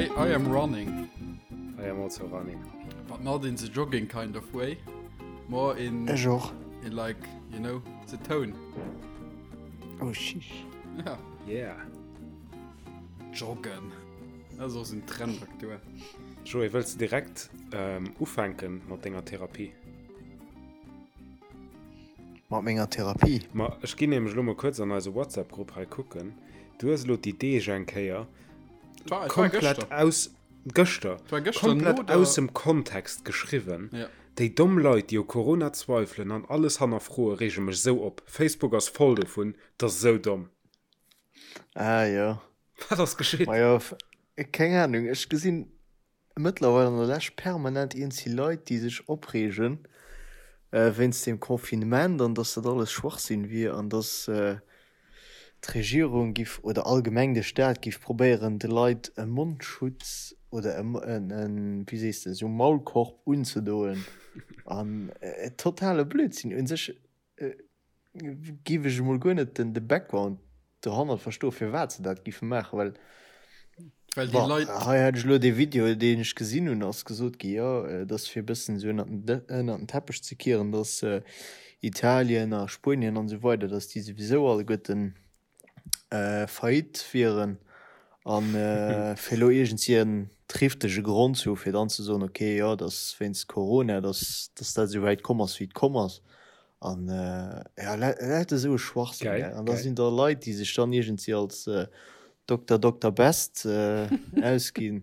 I, I am running. I am also running. But not in the jogging kind of way. More in, Ech och. in like, you know, the tone. Oh, sheesh. Ja. Yeah. Joggen. Dat ass och esou en Trend aktuell. Joé, wëlls de direkt ähm, ufänken mat denger Therapie? Mat menger Therapie? Ma ech ginn nämlech elo mol kuerz an eise WhatsApp-Grupp hei kucken. Du hues elo déi Deeg eng Kéier War, komplett war aus gëschter War gëschter komplett no der- aus dem Kontext geschriwwen. Ja. Déi domm Leit, déi u Corona zweifelen an alles hannerfroe reege mech sou op. Facebook ass voll dovun, 't ass sou domm. Ah jo. Wat ass geschitt? Majo, keng Ahnung, ech gesinn mëttlerweil an der Lescht permanent iergendwéi Leit, déi sech opreegen wéinst dem Confinement an dass dat alles Schwachsinn wier an dass d'Regierung giff oder allgemeng de Staat giff probéieren de Leit e Mondschutz oder e, wéi sees de, esou Maulkorb unzedoen an totale Blödsinn. U sech Giff ech emol guer net den de Background dohannert verstoen firwat se dat giffe maachen, well Well déi bon Leit. hei hat ech elo dee Video deen ech gesinn hunn ass gesot gi jo et ass fir e bëssen esou ënnert den ënnert den Teppech ze kieren dass Italien a Spuenien an esou weider dass déi souwisou alleguerten Faillite wieren an fir elo iergendwéi en trifftege Grond ze hu fir dann ze soen, okay, jo, et ass wéinst Corona, datt datt dat esou wäit komm ass wéi et komm ass. An jo, lauter esou e Schwachsinn, gell. An da sinn da Leit, déi sech dann iergendwéi als Dokter Dokter Best ausginn,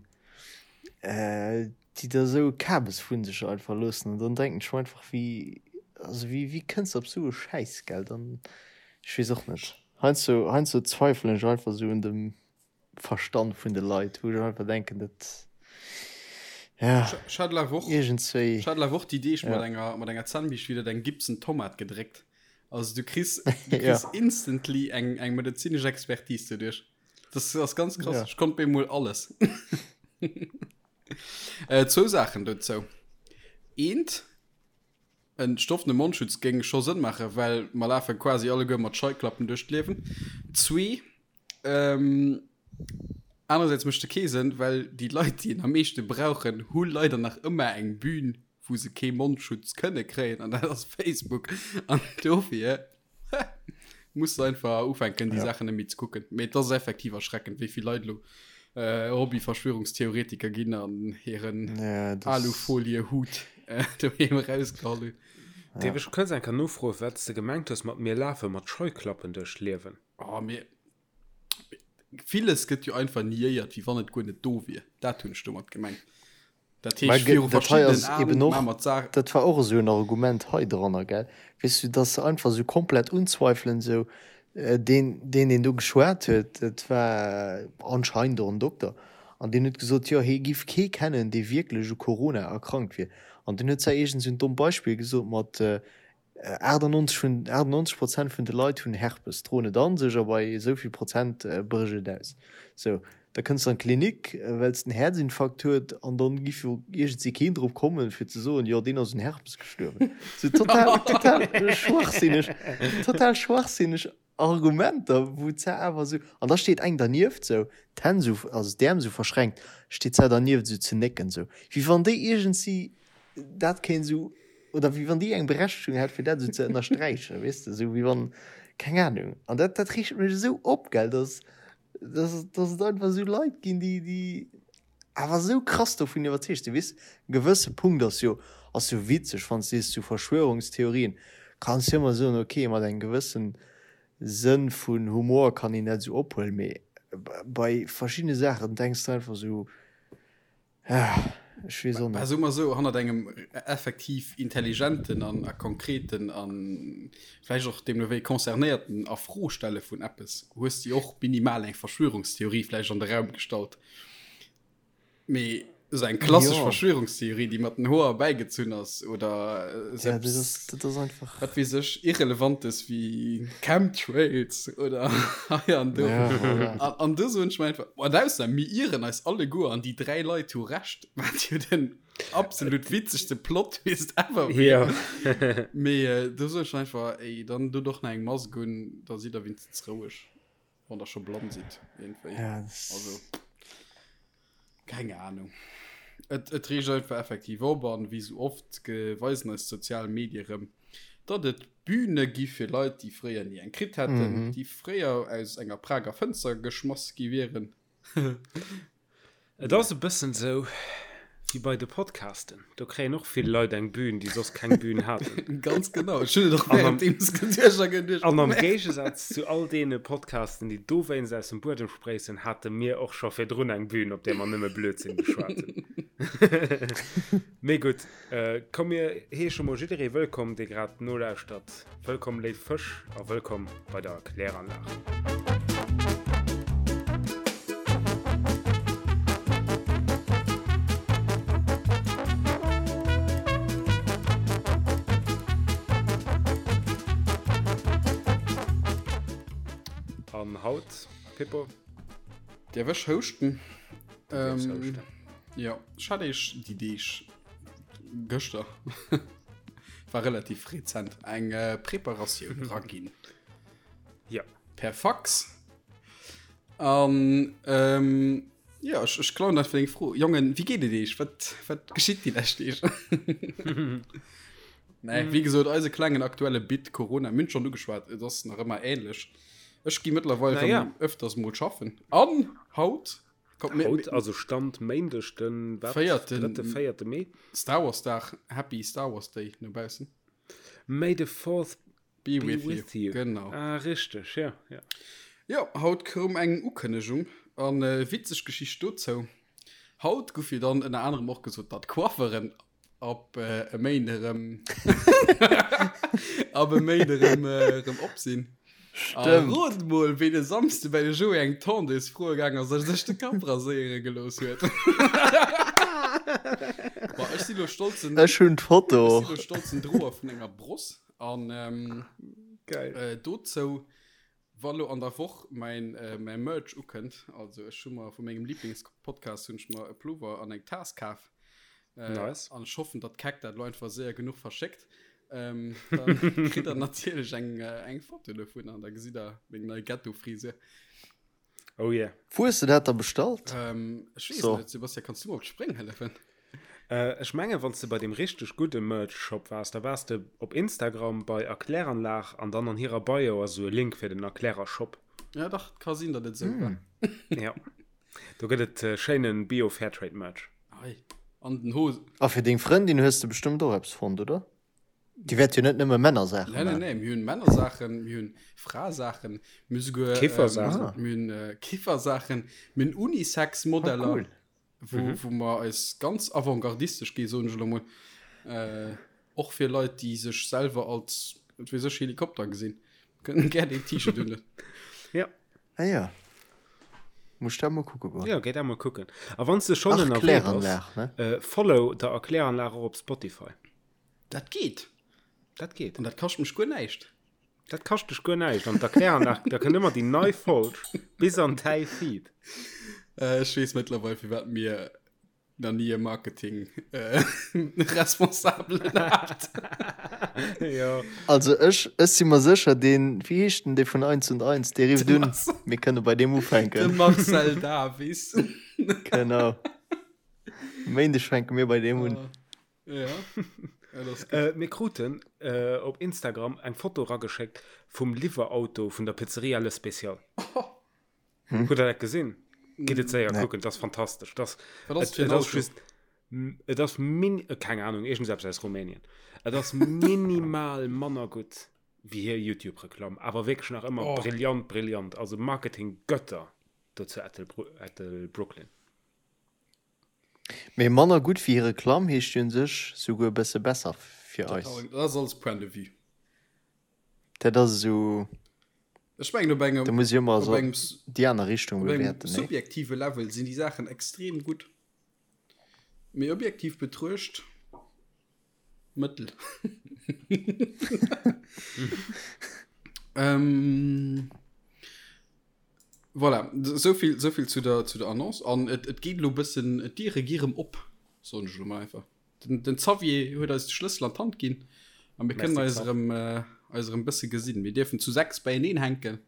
déi da esou e Kabes vu sech einfach loossen. An dann denken ech mer einfach, wéi, also wéi, wéi kënns de op esou e Schäiss, gell? Dann, ech weess och net. Heiansdo, heiansdo zweifelen ech einfach esou un dem Verstand vun de Leit, wou ech einfach denken, dat, ja, Ech hat laf och, iergendswéi, ech hat laf och déi Deeg mat ja. enger, mat enger Zännbiischt widder eng Gibson Tomat gedréckt. Also du kriss, du Ja. kriss instantly eng, eng medezinesch Expertise doduerch. Das ass ganz krass. Ja. Ech konnt bemol alles. äh, zwou Saachen dozou. Eent, en stoffene Mondschutz géing scho Sënn maachen, well mer lafe quasi alleguer mat Scheuklappen duerch d'Liewen. Zwee, ähm, anerersäits mécht e kee Sënn, well déi Leit, déi en am meeschte brauchen, hu leider nach ëmmer eng Bühn, wou se kee Mondschutz kënne kréien, an dat ass Facebook. An dofir Muss du einfach ufänken, déi Ja. Saachen net méi ze kucken. Mee et ass effektiv erschreckend, wéi vill Leit elo äh, Hobby-Verschwörungstheoretiker ginn an hiren Ja, das, Alufolie-Hut äh, doheem erausgeholl hunn. Dierf ech kuerz eng Kéier nofroen, wat s de gemengt hues mat mir lafe mat Scheuklappen duerch d'Liewen? Oh, mir Villes gëtt jo einfach niéiert, wéi wann et guer net do wier. Dat hunn ech domat gemengt. Dat Mä heescht, viru dat hei verschiddenen ass eben Aen och, maache mer d'Saach. dat war och esou en Argument hei dranner, gell, weess du, dass se einfach esou komplett unzweifelen, esou deen, deen, deen do geschwat huet, dat war anscheinend och en Dokter, an deen huet gesot, jo, hie giff kee kennen, dee wierklech u Corona erkrankt wier. An deen huet zwar iergend esou en dommt Beispill gesot mat, 98 vun 98 Prozent vun de Leit hunn Herpes, droen et an sech a bei esou vill Prozent brécht et aus. Sou, da kënns de an d'Klinik, well s de en Häerzinfarkt huet an dann giff jo iergendwéi keen drop kommen, fir ze soen, jo deen ass un Herpes gestuerwen. Sou total, total schwachsinneg, total schwachsinneg Argumenter, wou d'Sar awer esou, an da steet eng dernieft sou, d'Hänn sou, also d'Äerm sou verschränkt, steet d'Sar dernieft sou ze nécken, sou wéi wann déi iergendwéi dat kéint sou, oder wéi wann déi eng Berechtegung hätt fir dat sou ze ënnersträichen, weess de, sou wéi wann, keng Ahnung. An dat, dat reegt mech esou op, gell, dass, dass, dass et einfach esou Leit ginn, déi, déi awer esou krass dovun iwwerzeegt sinn, weess, e gewësse Punkt ass jo, ass jo witzeg, wann s de sees, zu Verschwörungstheorien kanns jo ëmmer soen, ok, mat engem gewëssen Sënn vun Humor kann een dat esou ophuelen, mee bei verschiddene Saachen denks de einfach esou, ah, ech weess och Bah, net. soe mer esou, hannert engem effektiv intelligenten an a konkreten a vläicht och deemno wéi concernéierten A-Fro-Stelle vun eppes hues de jo och minimal eng Verschwörungstheorie vläicht an de Raum gestallt. Mee esou eng klassesch Jo. Verschwörungstheorie, déi mat den Hoer erbäigezunn ass oder Ja, dat selbst, ass, dat ass einfach. wat weess ech, Irrelevantes wéi Chemtrails oder hei an do. Ja, voilà. An, an do soen ech mer einfach, an ausser mir ieren eis alleguer an déi 3 Leit hu Recht, wat jo den absolut witzegste Plot-Twist ever wier. Ja. Mee äh, do soen ech mer einfach, ey, dann dot och nach eng Mask un, da sidd der wéinstens roueg. Wann der scho blann sidd, iergendwéi. Ja, das Also. Keng Ahnung. Et, et reegt einfach effektiv op an wéi sou oft weisen eis d'sozial Medie rëm, datt et Bühne gi fir Leit, déi fréier ni eng kritt hätten, déi fréier aus enger Prager Fënster geschmass gi wieren. Et ass e bëssen sou wéi bei de Podcasten, do kréien och vill Leit eng Bühn, déi soss keng Bühn haten. Ganz genau, ech hunn et och währenddeems geduecht a geduecht. An am Géigesaz zu all deene Podcasten, déi dowéinst aus dem Buedem spréissen, hate mir och scho virdrun eng Bühn, op där mer nëmme Blödsinn geschwat hunn. Mee gutt, komm mir heesche mol jidderee wëllkomm, dee grad nolauschtert. Wëllkomm léif Fësch a wëllkomm bei der Kläranlag. An haut, Pippo? Däerf ech houschten? Du däerfs houschten. Jo, ech hat eech déi Deeg gëschter war relativ rezent eng äh, Preparatioun raginn. Ja. Per Fax. An ähm, ja, ech, ech klauen einfach deng Fro. Jongen, wéi geet et eech? Wat, wat geschitt déi lescht Deeg? Nee, wéi gesot, eise klengen aktuelle Bit Corona, mir hunn schonn ugeschwat, et ass nach ëmmer ähnlech. Ech gi mëttlerweil Na ja. rëm öfters mol schaffen. An haut Kommt, mir, Haut, also Stand Méindeg, den wat? Véierten. Drëtte, véierte Mee. Star Wars Dag, Happy Star Wars Day no baussen. May the fourth be, be with, with you. you. Genau. Ah, richteg, ja, ja. Jo, haut koum eng Ukënnegung an äh, witzeg Geschicht dozou. Haut gouf jo dann ënner anerem och gesot, datt d'Coifferen Ab e Méinde erëm Ab e Méinde erëm erëm op sinn. Stëmmt. Rot mol, ween e Samsde bei de Joé eng Tondeuse froe gaang ass a sech de Kapp raséiere gelooss huet. Bon, ech si lo stolzen. Ech hunn d'Foto. Ech si lo stolzen Droer vun enger Bross an Geil. dozou Wa lo an der Woch mäin mäi Merch ukënnt, also ech hu mer vu mengem Lieblingspodcast hunn ech mer e Plover an eng Taass kaf. Nice. An ech hoffen, datt d'Keck dat lo einfach séier genuch verschéckt. Ähm, dann kritt der natierlech eng eng Foto dovun an da gesitt der meng nei Ghetto-Frisur. Oh yeah. Wou hues de dat da bestallt? Ähm, ech weess So. net, Sebastian, kanns du mer op d'Spréng hëllefen? Äh, ech mengen, wann s de bei deem richteg gudde Merch-Shop waars, da waars de op Instagram bei Erkläranlag an dann an hirer Bio ass esou e Link fir den Erklärer-Shop. Ja, dach, ka sinn, datt et esou war. Ja. Do gëtt et äh, schéinen Bio-Fairtrade-Merch. Ei, an den Hosen. A fir deng Frëndin hues de bestëmmt och eppes fonnt, oder? Déi wäert jo net nëmme Männersaachen Nee, nee, maachen. nee, mir hunn Männersaachen, mir hunn Frasaachen, mir hu souguer Kiffersaachen. Ähm, mir hunn äh, Kiffersaachen, mir hunn Unisex-Modeller, Ah, cool. wou, mhm. wou mer eis ganz avantgardistesch gi soen ech elo mol. Äh, och fir Leit, déi sech selwer als wat weess ech Helikopter gesinn, kënnen gär deen T-Shirt hunn. Ja. Ah ja. Muss ech dat mol kucke goen. Ja, géi dat mol kucken. A wann s de schonn ënnerwee bass, Erkläranlag, ne? äh, follow der Erkläranlag och op Spotify. Dat geet. Dat geet. An dat kascht mech guer näischt. Dat kascht dech guer näischt. An d'Erkläranlag, da kënnt ëmmer déi nei Folg bis an däi Feed. Äh, ech weess mëttlerweil, firwat mir nach ni e Marketing äh, Responsabelen hat. Jo. Also ech, ech si mer sécher, deen, wéi heescht den, dee vun Eins und Eins, dee rifft un, mir kënne bei deem De ufänken. Marcel Davis. Genau. Méindeg fänke mir bei deem un. Ja. Ja, das ist Äh, mir kruten äh, op Instagram eng Foto rageschéckt vum Liwwerauto vun der Pizzeria Le Special. Hm? Hutt der dat gesinn? Gitt et séier Nee. kucken, dat ass fantastesch. Das, Wat ass et, fir en et ass Auto? just, et ass min, äh, keng Ahnung, iergendseppes aus Rumänien. Et ass minimal manner gutt wéi hir YouTube-Reklamm, awer wierklech nach ëmmer Oh. brillant, brillant. Also Marketing-Götter do zu Ettelbru Ettelbrooklyn. Mee manner gutt wéi hir Reklamm heescht jo un sech souguer e bësse besser fir eis. Dat ass alles Point de vue. Dat ass esou, Ech mengen op engem, da muss ech ëmmer op esou engem, déi aner Richtung op engem bewäerten, nee? subjektive Level sinn déi Saachen extrem gutt. Mee objektiv betruecht, mëttel. ähm, Voilà, souvill, souvill zu der, zu der Annonce. An et, et geet elo e bëssen, d'Diere gi rëm op, soen ech elo mol einfach. Den, den Xavier huet eis de Schlëssel an d'Hand ginn a mir kënnen Merci, eis Xav. erëm, äh, eis erëm bësse gesinn. Mir dierfen zu 6 beieneen hänken.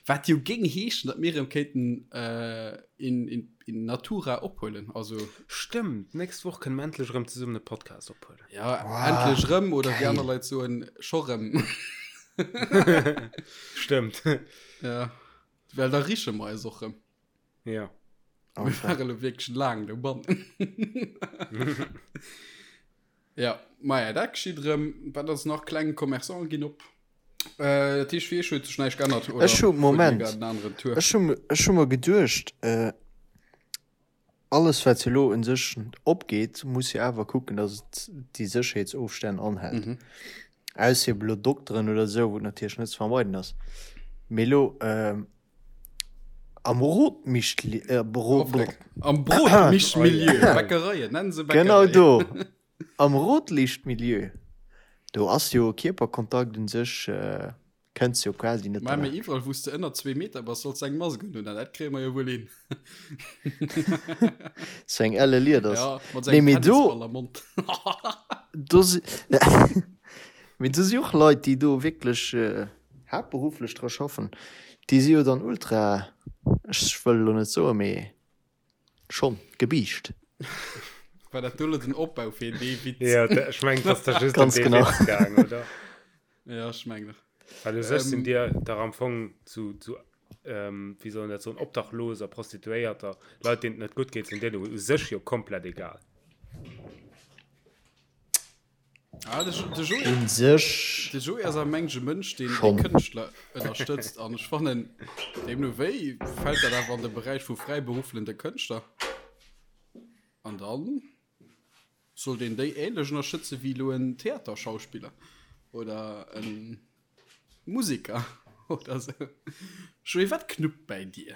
Wat jo géing heeschen, datt mir erëm kéinten äh, in, in, in Natura ophuelen. Also, Stëmmt, d'nächst Woch kënne mer endlech erëm zesummen e Podcast ophuelen. ja, wow, endlech erëm, oder wéi aner Leit soen, scho rëm. Stëmmt. Ja, well da riche mer eis och rëm. Ja. Mir ware lo wierklech laang dobannen. Ja, maja, dat geschitt erëm. Wat ass nach? Kleng Commerçante ginn op. Äh, dat heescht, fir iech huet sech näischt geännert, oder? Ech hu, Moment, ech hu, ech hu mer geduecht, äh, alles wat jo elo un sech opgeet, muss jo awer kucken, datt et déi Sécherheetsofstänn anhält. Mhm. Ausser ebe elo Dokteren oder esou, wou et natierlech net ze vermeiden ass. Mee elo, äh, am Rotmichtli, äh, Brot, Am Brotmischmilieu, Bäckereien, nennen se Bäckereien. Genau do, am Rotlichtmilieu, do ass jo Kierperkontakt un sech, äh, kënns jo quasi net Mä derlaanscht. iwwerall, wou s de ënner zwee Meter bass, solls de eng Mask unhunn, an dat kréie mer jo wuel hin. Sou eng elle Lieders. Ja, mat Nee, engem mee do, Tennisball am Mond. do si, mee do si och Leit, déi do wierklech, äh, haaptberufflech dra schaffen, déi si jo dann ultra, ech wëll elo net soen, mee schonn gebiischt. War dat do elo den Opbau fir dee Witz? Ja, ech mengen, et ass da just ëm Ganz dee genau. Witz gaang, oder? Ja, ech mengen och. Well u sech sinn dir dach am Fong zu, zu ähm, wéi soll een dat soen, Obdachloser, Prostituéierter, Leit, deenen et net gutt geet, sinn dir u sech jo komplett egal. Ah, de, de Joé, Un sech de Joé ass am mengge Mënsch, deen schonn. Kënschtler ënnerstëtzt an ech fannen, deemno wéi fält dat awer an de Beräich vu fräiberufflende Kënschtler. An dann sollt een déi ähnlech ënnerstëtze wéi elo en Theaterschauspiller oder en Musiker oder sou. Joé, wat knuppt bäi dir?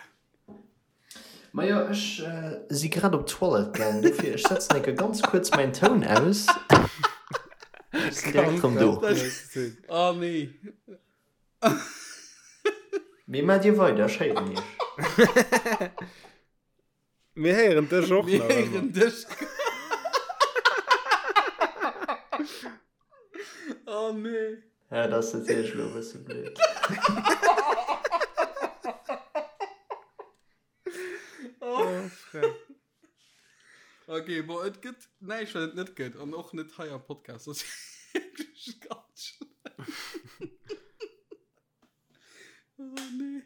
Majo, ech si grad op d'Toilette gaang, dofir ech setzen enke ganz kuerz mäin Toun aus. Ech sinn direkt rëm do. Oh nee. Mee maacht dir weider, ech héieren iech. Mir héieren dech och Mir nach ëmmer. héieren dech. Oh nee. Ja, dat ass natierlech elo e bësse blöd. Oh, Freck. Okay, bon, et gëtt näischt, wat et net gëtt. An och net hei am Podcast. Dat ass wierklech ganz schlëmm. Oh, nee.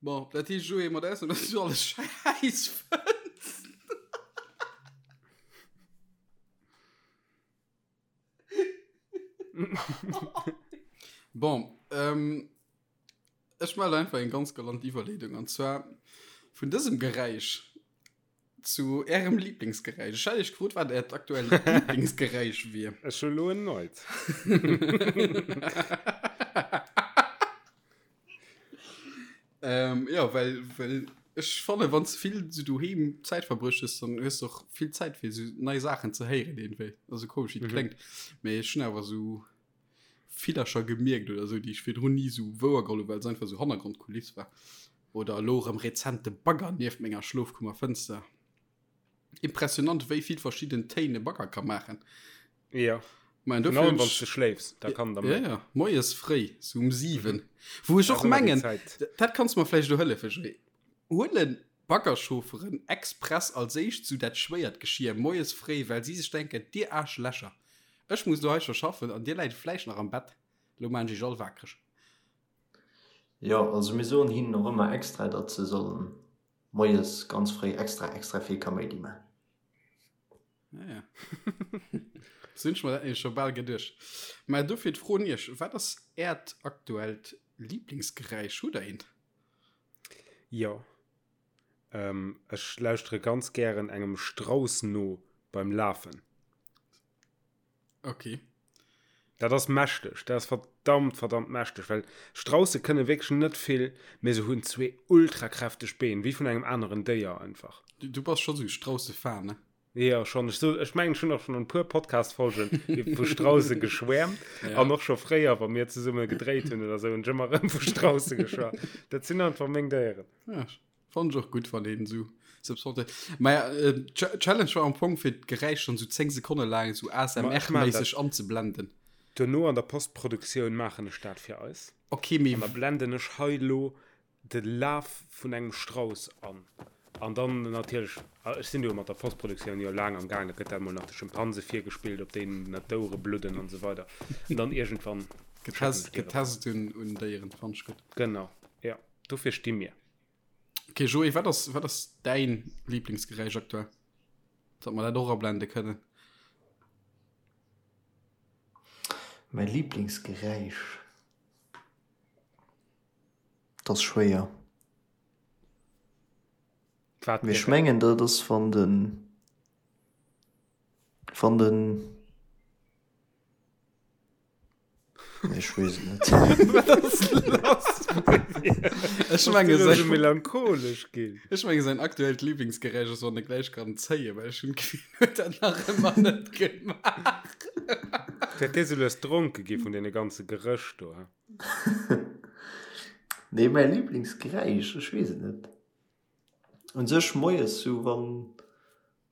Bon, dat heescht, Joé, mat Ausnam, dass du alles schäiss fënns. Bon, ähm, ech melde einfach eng ganz galant Iwwerleedung an zwar vun dësem Geräisch zu ärem Lieblingsgeräisch. Ech hat iech gefrot, wat äert aktuellt Lieblingsgeräisch wier. Ech hu lo en neit. Ähm, ja, well, well ech fanne wann ze vill so doheem Zäit verbruecht hues, dann hues du och vill Zäit fir so nei Saachen ze héieren iergendwéi. Also komesch wéi et kléngt, mee ech hunn awer sou Villercher gemierkt oder sou, déi ech virdrun ni sou wouergeholl hunn, well se einfach sou Hannergrondkuliss war. Oder elo erëm rezent de Bagger nieft menger Schlofkummerfënster. Impressionant wéi vill verschidden Téin e Bagger ka maachen. Ja. Mein, dofir wann du schléifs, da kann der ja, ja. Moies fréi, so um 7. Mhm. Wou ech och mengen, dat kannst du mer vläicht do hëllefen, Joé. Huelen Baggerchaufferen express als éischt sou dat schwéiert Geschir moies fréi, well si sech denken, dir Aarschlächer, ech muss lo hei scho schaffen an dir läit vläicht nach am Bett, lo maan ech iech all waakreg. Jo, also mir soen hinnen och ëmmer extra, datt se sollen moies ganz fréi extra extra vill Kaméidi man. Ja, ja. Das hunn ech mer dat nämlech scho bal geduecht. Mä dofir d'Fro un Iech, Wat ass Äert aktuellt Liblingsgeräisch? Hutt Der eent? Jo. Ähm, ech lauschtere ganz gären engem Strauss no beim Lafen. Okay. Dat ass mächteg, dat ass verdammt, verdammt mächteg, well Strausse kënne wierklech net vill, mee se hunn zwee ultrakräfteg Been, wéi vun engem aneren Déier einfach. Du, du bass scho sou Strausse-Fan, ne? Jo, schonn. Ech, so, ech mengen, ech hunn och schonn an e puer Podcast-Folgen vu Strausse geschwäermt. Ja. An och scho fréier, wa mir zesumme gedréit hunn oder sou, hunn ech ëmmer erëm vu Strausse geschwat. Dat sinn einfach meng Déieren. Ja, Fand ech och gutt, wann een esou Subsorte. Ma ja, äh, Challenge war am Fong fir d'Geräisch dann sou 10 Sekonne laang sou Ma ech maan ASMR-méisseg dat. anzeblenden. Duerno an der Postproduktioun maachen ech dat fir eis. Okay, mee. An da blenden ech hei elo de Laf vun engem Strauss an. An dann natierlech, ech sinn do mat der Postproduktioun jo laang am Gaang, da gëtt dat mol nach de Schimpanse virgespillt, op deenen d'Ouere bludden an esou weider. An dann iergendwann schécken ech dir et. Getest un Déieren, fannt ech gutt. Genau, jo, dofir sti mir. Okay, Joé, wat ass, wat ass däin Lieblingsgeräisch aktuell? Datt mer dat och ablende kënnen. Mäi Lieblingsgeräisch? Dat ass schwéier. Wat Mee ech mengen dat ass wann den wann den Nee, ech weess et net. Wat ass lass bei dir? Ech menge säin melancholesch ginn. Ech menge säin aktuellt Lieblingsgeräisch ass wann e gläich kann zéien, well ech hunn d'Gefill en huet dat nach ëmmer net gemaach. Dat dee sou lues dronke gi vun deene ganze Geréch do, he? Nee, mäi Lieblingsgeräisch, ech weess et net. Un sech moies sou wann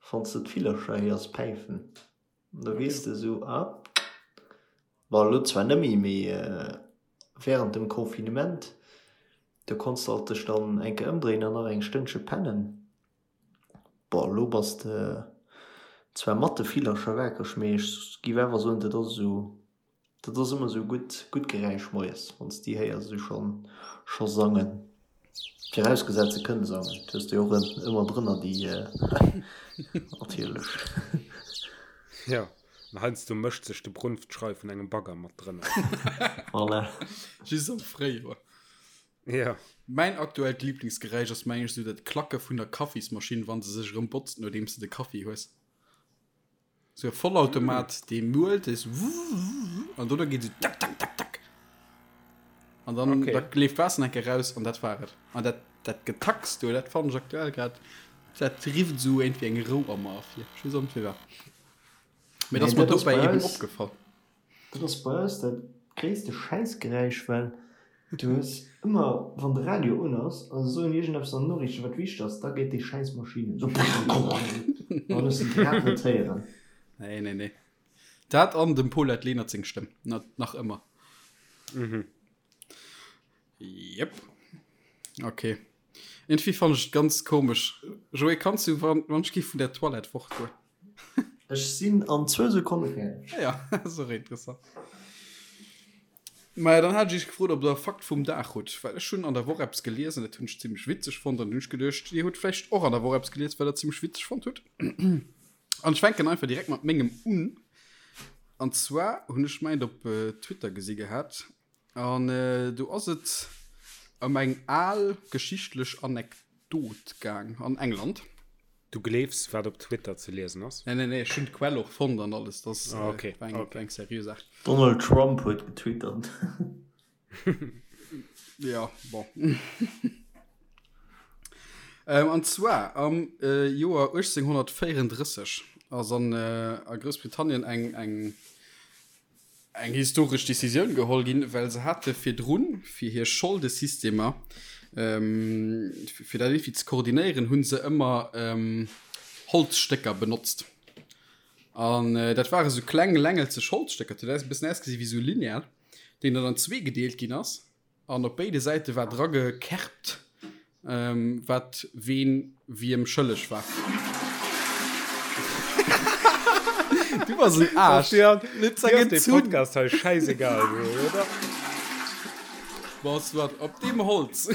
wann s de d'Villercher héiers päifen, da weess de sou, ah, bon elo zwar net méi, mee während dem Confinement, do konns de alt dech dann eng Kéier ëmdréinen an nach eng Stënnche pennen. Bon elo bass de zwar mat de Villercher wakereg, mee ech giff awer soen, dat ass esou Dat ass ëmmer sou gutt, gutt Geräisch moies, wann s déi héiers esou schonn, scho sangen. Virausgesat se kënne sangen, et hues de jo och ëmmer drënner déi, natierlech. Jo, an heiansdo mëscht sech de Brunftschrei vun engem Bagger mat drënner. Voilà. Just am Fréijoer. Jo. Mäin aktuellt Liblingsgeräisch ass mengen ech esou dat Klacke vun der Kaffismaschinn, wann se sech erëm botzt nodeems de de Kaffi hues. Sou e Vollautomat, dee muelt, dee sou wuuuuuw an dono geet sou tak tak tak tak. An dann okay. da leeft Waasser enke raus an dat war et. An dat, dat Getacks do, dat fannen ech aktuell grad, dat rifft sou iergendwéi eng Rou a mer ervir. Ech weess och net firwat. Mee dat ass mer dobäi eben opgefall. Dat ass bei eis dat gréisste Schäissgeräisch, well du hues ëmmer, wann de Radio un ass a se soen iergendeppes an den Noriichten, wat wichteg ass, da geet déi Schäissmaschinn un, esou an hues de grad net héieren. Nee, nee, nee. Dat an dem Paulette Lenert seng Stëmm, nach ëmmer. Jep. Okay. Irgendwie fand ech et ganz komesch. Joé, kanns du wann, wann ech gi vun der Toilette fort goen? Ech sinn an zwou Sekonne fäerdeg. Ah ja, dat ass och interessant. Maja, dann hat ech iech gefrot, ob der e Fakt vum Dag hutt, well ech hunn an der Woch eppes gelies an dat hunn ech zimmlech witzeg fonnt an hunn ech geduecht, dir hutt vläicht och an der Woch eppes gelies, wat der zimmlech witzeg fonnt hutt. An ech fänken einfach direkt mat mengem un. An zwar hunn ech mäint op Twitter gesi gehat an do ass et ëm eng al geschichtlech Anekdot gaang an England. Du gleefs, wat op Twitter ze liesen ass? Nee, nee, nee, ech hunn d'Quell och fonnt an alles. Dat ass ah, okay. eng, okay. eng seriö Saach. Donald Trump huet getwittert. Ja, bon. ähm, an zwar am äh, Joer 1834 ass an, äh, a Groussbritannien eng, eng eng historesch Decisioun geholl ginn, well se hate virdrun, fir hir Scholdesystemer, fir dat iergendwéi ze koordinéieren, hu se ëmmer Holzstécker benotzt. An dat ware sou kleng längelzeg Holzstécker, dat huet e bëssen ausgesi wéi sou Lineal, deen dann an zwee gedeelt ginn ass. An op béide Säite war dra gekerbt, wat ween wiem schëlleg war. Du bass en Aarsch. Dir ass dee Podcast hei schäisegal, oder? Bon, soit. Op deem Holz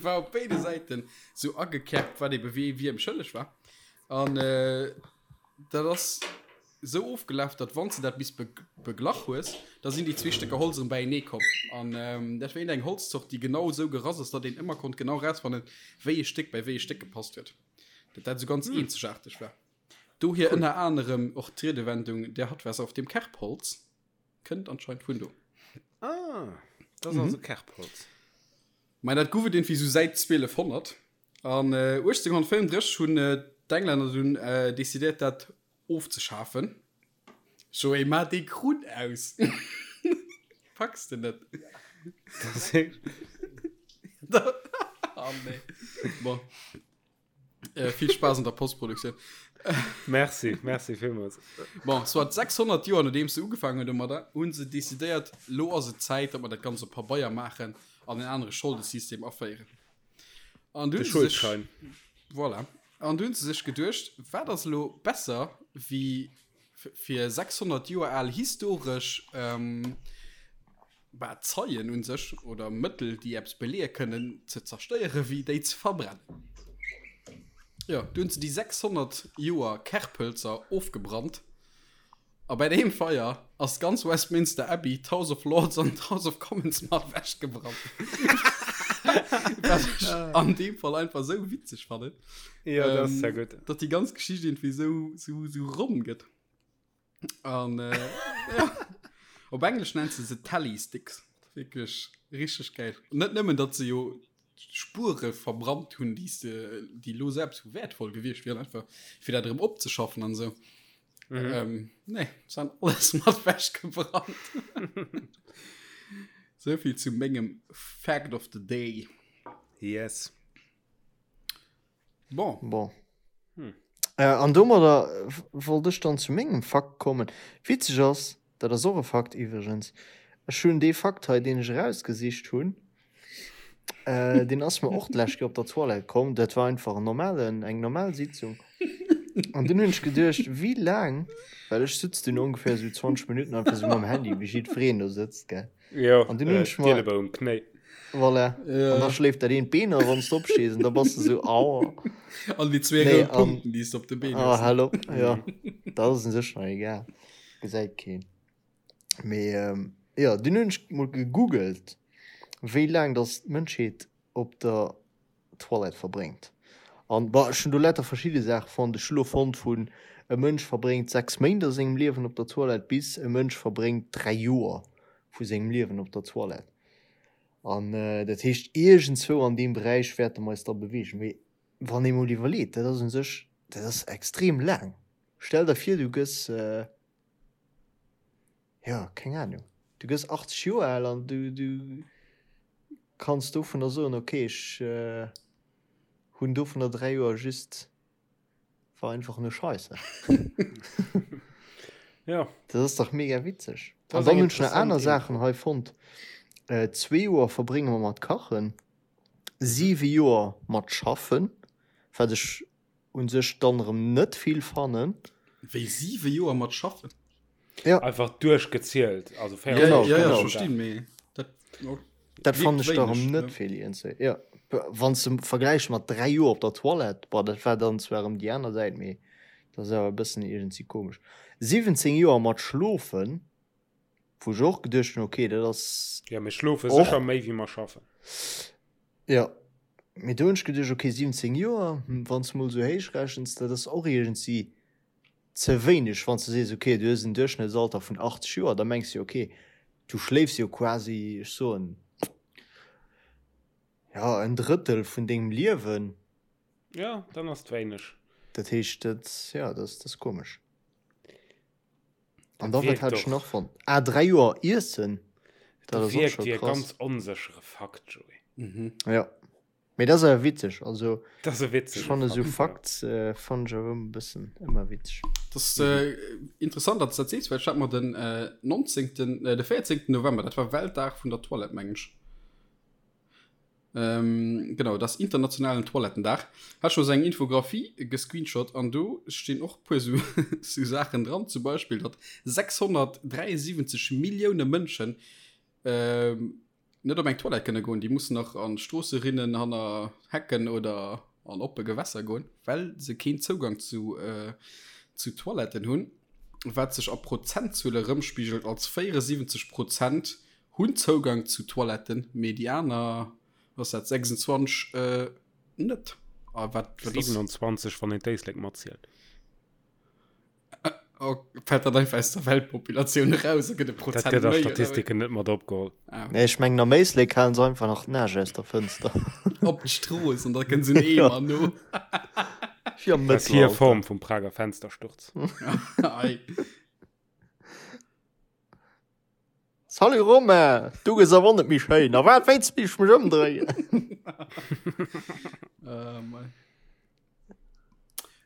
war op béide Säiten sou agekerbt, wat ebe wee wiem schëlleg war. An dat ass. Esou ofgelaf, datt wann s de dat bis beglach hues, da sinn déi zwee Stécker Holz erëm beienee komm. An dat war iergendeng Holzzort, déi genau esou gerass ass, datt een ëmmer konnt genau erausfannen, wéi e Stéck bei wéi e Stéck gepasst huet. Datt dat esou ganz eenzegaarteg war. Dohier ënner anerem och d'Riedewendung Der hat was auf dem Kerbholz kënnt anscheinend vun do. Ah, dat ass also Kerbholz. Mä dat gouf et iergendwéi esou säit 1200. An 1835 hunn d'Englänner dunn decidéiert, dat Ofzeschafen. Joé, maach dee Krunn aus! Packs de net? Oh nee. Bon. Äh, vill Spaass an der Postproduktioun. Merci, merci villmools. Bon, soit 600 Joer nodeems se ugefaangen hunn domadder, hu se decidéiert, lo ass et Zäit, datt mer dat Ganzt op Pabeier maachen an en anere Scholdesystem aféieren. An du De Schuldschein. Voilà. An du hunn se sech geduecht, wat ass elo besser wéi fir 600 Joer al historesch ähm, bah, Zeien un sech oder Mëttel, déi eppes beleeë kënnen, ze zerstéieren, wéi déi ze verbrennen. Jo, du hunn se déi 600 Joer Kerpölzer ofgebrannt. A bei deem Feier ass d'ganz Westminster Abbey, d'House of Lords an d'House of Commons mat ewech gebrannt. Wat ech an deem Fall einfach esou witzeg fannen. Ja, dat ass sehr gutt. Datt déi ganz Geschicht irgendwie esou, esou, esou ronn gëtt. An äh, ja. Op Englesch nennt se se Tally Sticks. Wierklech richteg geil. Net nëmmen, datt se jo Spuere verbrannt hunn, déi se, déi lo selbst sou wäertvoll gewiescht wieren, einfach fir dat erëm opzeschaffen an esou. Mhm. Ähm, nee, se han alles mat wechgebrannt. Souvill zu mengem Fact of the Day. Yes. Bon. Bon. Hm. Äh, an domadder wollt ech dann zu mengem Fakt kommen. Witzeg ass, dat ass och e Fakt iwwregens, ech hunn dee Fakt hei, deen ech erausgesicht hunn, äh, deen ass mer och d'lescht Kéier op der Toilette komm. Dat war einfach en normalen, eng normal Sitzung. An dunn hunn ech geduecht, wéi laang, well ech sutz dunn ongeféier esou 20 Minutten einfach esou mam Handy, wéi jiddwereen do sëtzt, gell. Jo, An dunn hunn ech mer. D'Ielebou um Knéi. Voilà. Ja. An da schléift dat eent Been a wann s de opstees, an da bass de sou, aua. An déi zwee Nee, rout an. Punkten, déi s de op de Been Ah, hues. hal op, jo. Dat ass un sech nach egal. Gesäit keen. Mee, jo, dunn hunn ech mol gegoogelt, wéi laang dass d'Mënschheet op der Toilette verbréngt. An, bon, ech hunn do lauter verschidde Saache fonnt. Ech hu lo fonnt vun e Mënsch verbréngt 6 Méint a sengem Liewen op der Toilette bis e Mënsch verbréngt 3 Joer vu sengem Liewen op der Toilette. An dat heescht, iergendzwou an deem Beräich wäerte mer eis da beweegen. Mee wann ee mol iwwerleet, dat ass u sech, dat ass extrem laang. Stell der vir, du gëss, jo, keng Anung, du gëss 80 Joer al an du, du kanns dovunner soen, ok, ech hunn dovunner 3 Joer just, war einfach nur Scheiße. Ja. Dat ass dach mega witzeg. Dat An ass dann eng hunn ech nach aner interessant Saachen Info. hei fonnt. Zwee Joer verbrénge mer mat kachen, siwe Joer mat schaffen, wat ech un sech dann erëm net vill fannen. Wéi siwe Joer mat schaffen? Ja. Einfach duerchgezielt, also Ja, Genau, ja, ja, genau. ech verstinn, mee dat oh, Dat fannen wierkt ech da erëm wéineg, net ne? vill iergendwéi. Ja, wann s de vergläichs mat 3 Joer op der Toilette, bon, dat war dann zwar erëm déi aner Säit, mee dat ass awer e bëssen iergendwéi komesch. 17 Joer mat schlofen, wou ech och geduecht hunn, okay, dat ass Ja, mir schlofe och. sécher méi wéi mer schaffen. Ja, mee do hunn ech geduecht, okay, 17 Joer, wann s de mol esou héich rechens, dat ass och iergendwéi ze wéineg. Wann s de sees, okay, du hues en Duerchschnëttsalter vun 80 Joer, da mengs de jo, okay, du schléifs jo quasi, ech soen, ja, en Drëttel vun dengem Liewen. Ja, dann ass et wéineg. Dat heescht, dat, ja, dat ass, dat ass komesch. An Dat da, wat wierkt hat ech och. nach fonnt? Ah, 3 Joer iessen, dat Dat ass och wierkt scho wéi e krass. ganz onséchere Fakt, Joé. Mhm. Ja. Mee dat ass awer witzeg. Also, Dat ass e ech witzege fanne sou Fakt, ja. Facts, äh, fannen ech awer ëmmer e bëssen, ëmmer witzeg. Dat ass äh, interessant, datt s dat sees, well ech hat mer den äh, 19., äh, de 14. November, dat war Weltdag vun der Toilette, mengen ech. Ähm, genau, dat ass internationalen Toilettendag. Hat ech mer sou eng Infographie gescreenshot an do stinn och e puer sou, sou Saachen dran, zum Beispill, datt 673 Millioune Mënschen ähm, net op eng Toilette kënne goen, déi mussen nach an Stroosserinnen, hanner Hecken oder an oppe Gewässer goen, well se keen Zougang zu, äh, zu Toiletten hunn, wat sech a Prozentzuele rëmspigelt als 74 Prozent hunn Zougang zu Toiletten, mee déi aner, was dat, 26 äh, net. A wat, wat ass, 27, wann een d'Éislek matzielt. Oh, fällt dat einfach aus der Weltpopulatioun eraus a gëtt e Dat Prozent gëtt a méi, oder wéi? Statistiken net mat opgeholl. Ah, Nee, ech mengen am Éislek halen se einfach nach d'Nage aus der Fënster. op d'Strooss an da kënnt se en Ja. Eemer no. Wéi am Dat ass hir Mëttelalter. Form vum Prager Fenstersturz. Ei. Salut Romain, du gëss awer net méi schéin. A wat wéinst mech mech ëmdréien? Äh, mei.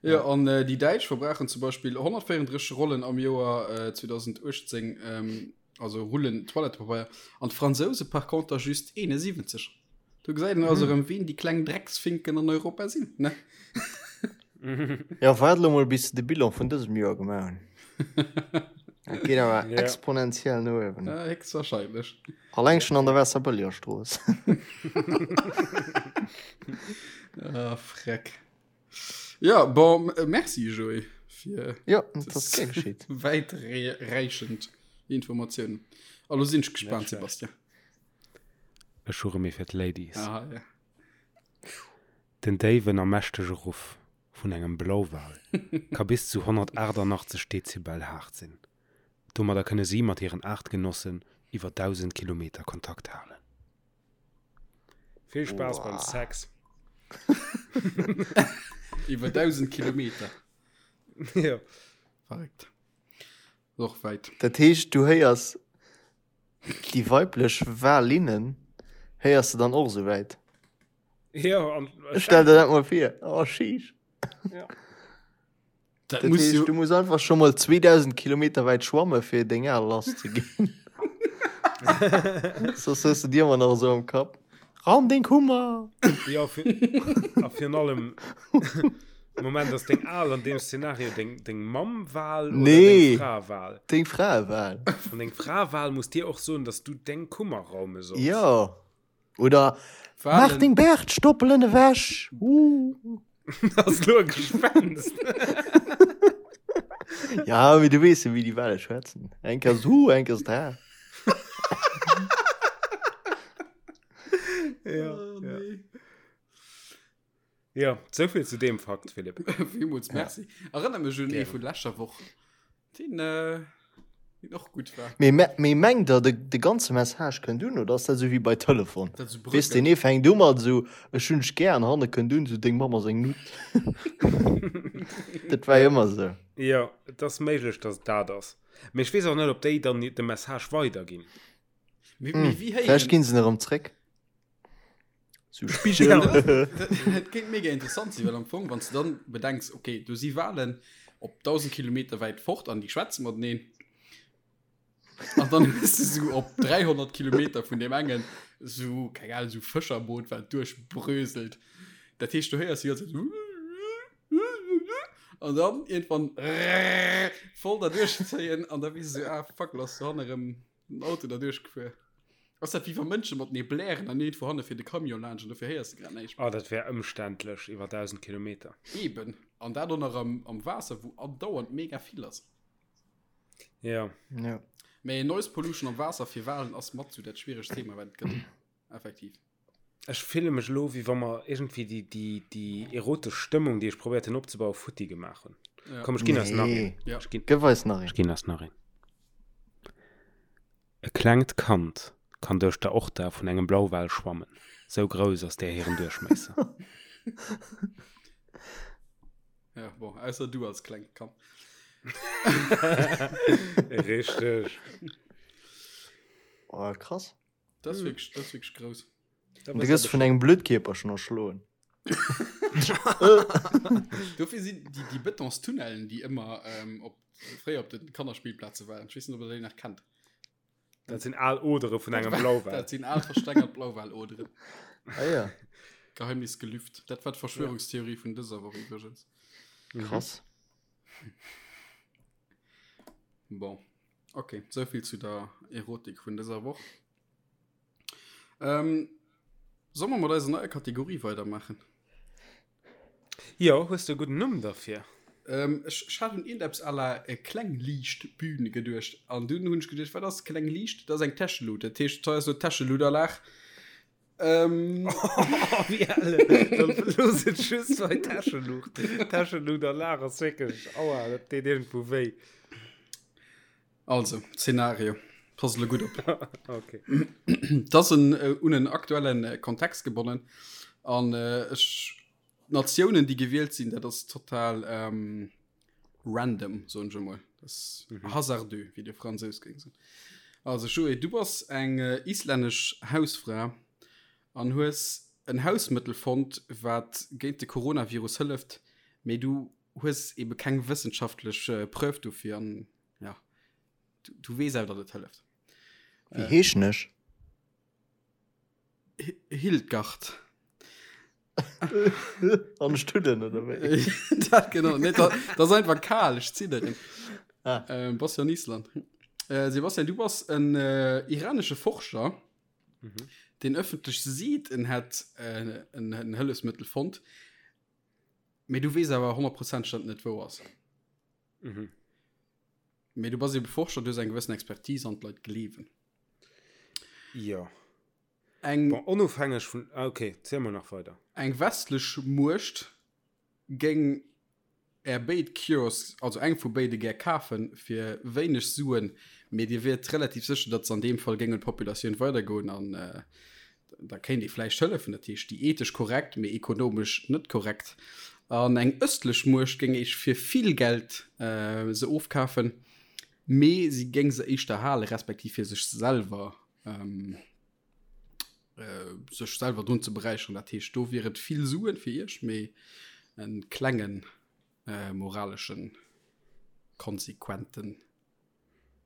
Jo, an déi Däitsch verbrauchen zum Beispill 134 Rollen am Joer 2018, also Rullen Toilettepabeier, an d'Fransouse par conter just 71. Do gesäit een also erëm, wien déi kleng Drecksfinken an Europa sinn, ne? Jo, waart elo mol, bis se de Bilan vun dësem Joer gemaach hunn. Dat geet awer Ja. exponentiell no uewen. Ja, héchstwahrscheinlech. Alleng schon an der Waasserbëllegerstrooss. Ah, freck. Ja, bon, merci Joé fir Ja, dat ass gär geschitt. wäitreichend Informatiounen. A lo sinn ech gespaant, Net schlecht. Sebastian. Ech hu rëm ee fir d'Ladies. Aha, ja. Den déiwen a mächtege Ruff vun engem Blauwal ka bis zu 188 Dezibel haart sinn. Domadder kënne si mat hiren Aartgenossen iwwer 1.000 Kilometer Kontakt halen. Vill Spaass beim Sex! Iwwer 1.000 Kilometer? Jo. Verréckt. Ass och wäit. Dat heescht, du héiers déi weiblech Walinnen héiers de dann och esou wäit? Jo, an Stell der dat mol vir. Oh, sheesh. Ja. Dat Dat muss heescht, jo du muss einfach schon mal 2000 Kilometer wäit schwamme fir deng Aal lass ze ginn. Soss hues du dir ëmmer nach esou am Kapp. Raum deng Kummer! Ja, fir, a virun allem, Moment, ass deng Aal an deem Szenario deng, deng Mamm-Wal oder Nee. deng Fra-Wal? Deng Fraewal. An deng Fra-Wal muss dir och soen, dass du deng Kummer raume solls. Jo. Oder Mach deng Bärtstoppelen ewech! Uh. Ass lo e Gespenst? Ja, mee du weess jo, wéi déi Wale schwätzen. Eng Kéier ass et hu, eng Kéier ass et ha. Ja, Oh, ja. nee. Ja, souvill zu deem Fakt, Philipp. Villmools merci. Erënner mech un ee Gären. vun leschter Woch, deen, äh, deen och gutt war. Mee, me, mee mengt der, de, de ganze Message kënnt un, oder ass dat esou wéi bei Telefon? Dat esou Weess, bröckelt. deen ee fänkt u mat esou, ech hunn dech gär, an hanne kënnt un esou, deng Mamm ass eng Nutt. Dat war jo ëmmer esou. Jo, et ass méiglech, dass et dat ass. Mee ech weess och net, ob déi dann de Message weiderginn. Mee, mee wéi Vläicht héieren. ginn se en erëm zréck. Sou Spigel. Dat kéint mega interessant sinn, well am Fong, wann s de dann bedenks, okay, do si Walen op 1.000 Kilometer wäit fort an déi schwätze mateneen, an dann hues de sou op 300 Kilometer vun deem engen sou, keng Ahnung, sou Fëscherboot, wat duerchbröselt. Dat heescht, du héiers déi ganz Zäit sou an dann iergendwann voll derduerchzéien an da weess de sou, ah fuck, lo ass dohanne erëm Den Auto da duerchgefuer. Ass dat wéi wa Mënsche matenee blären an iergendwou hanne fiert e Camion laanscht an dofir héiers de grad näischt méi? Oh, dat wär ëmständlech iwwer 1000 Kilometer. Eben. An dat och nach am, am Waasser, wou andauernd mega vill ass. Ja. Ja. Mee Noise Pollution am Waasser fir Walen ass mat sou dat schwieregst Thema, wat et gëtt. Effektiv. Ech fille mech elo, wéi wa mer iergendwéi déi, déi, déi erotesch Stëmmung, déi ech probéiert hunn opzebauen, futti gemaach hunn. Ja. Komm, ech ginn eis nach een. Nee. Ja. Ech ginn, Gëff eis nach ech een. ginn eis nach een. E klengt Kand kann duerch d'Aorta vun engem Blauwal schwammen, sou grouss ass där hiren Duerchmiesser. Ja, bon, ausser du als klengt Kand. Richteg. Oh, krass. Dat ass wierklech, dat ass wierklech grouss. Du gëss vun engem Blödkierperchen erschloen. Dofir sinn déi, déi Betonstunnellen, déi ëmmer ähm, op, fréier op de Kannerspillplaze waren. Ech weess net, ob der déi nach kennt. Dat sinn al Odere vun engem Blauwal. Dat sinn al verstengert Blauwaloderen. Ah ja, Geheimnis gelüft. Dat war d'Verschwörungstheorie vun dëser Woch iwwregens. krass. Bon. Okay, souvill zu der Erotik vun dëser Woch. Ähm, soll mer mat eiser neier Kategorie weidermachen? Jo, hues de e gudden Numm derfir? Ähm, ech, ech hat un iergendeppes à la äh, Klengliichtbühn geduecht. An dunn hunn ech geduecht, wat ass Kleng Liicht? Dat ass eng Täschelut. Dat heescht, hei ass elo d'Täscheluterlag. Ähm, Oh, wéi elle. Dann looss et just bei Täscheluucht. Täscheluterlag ass wierklech, aua, dat deet iergendwou wéi. Also, Szenario. Pass elo gutt op. Okay. Dat ass en, äh, un en aktuellen äh, Kontext gebonnen. An äh, ech, d'Natiounen, déi gewielt sinn, dat ass total ähm, random, soen ech emol. Dat ass mhm. hasardeux, wéi de Fransous géing soen. Also, Joé, du bass eng äh, islännesch Hausfra an hues en Hausmëttel fonnt, wat géint de Coronavirus hëlleft, mee du. hues ebe keng wëssenschaftlech Preuve dofir an ja, du, du weess awer, datt et hëlleft. Wéi heeschen ech? Hildgard. An Studden oder wéi? Dat genau. Nee, dat, dat ass einfach kal, ech zidderen. Ah. Ähm, bass jo an Island. Äh, Sebastian, du bass en äh, iranesche Forscher, mhm. den ëffentlech seet, en hätt äh, en, en Hëllefsmëttel fonnt. Mee du weess awer honnertprozenteg, datt et net wouer ass. Mhm. Mee du bass ebe Forscher, du hues eng gewëssen Expertise an d'Leit gleewen. Jo. Eng. Bon, onofhängeg vun, ah, okay, ziel mol nach weider. Eng westlech Muecht géing Är béid Cures, also eng vu béide gär kafen, fir wéineg Suen, mee Dir wiert relativ sécher, datt se an deem Fall géing un d'Populatioun weidergoen an da kéint ee vläicht hëllefen. Dat heescht, déi ethesch korrekt, mee ekonomesch net korrekt. An eng ëstlech Muecht géing Iech fir vill Geld se ofkafen, mee si géing se éischter halen, respektiv fir sech selwer sech selwer drun ze beräicheren. Dat heescht, do wier et vill Suen fir Iech, mee e klengen moraleschen, konsequenten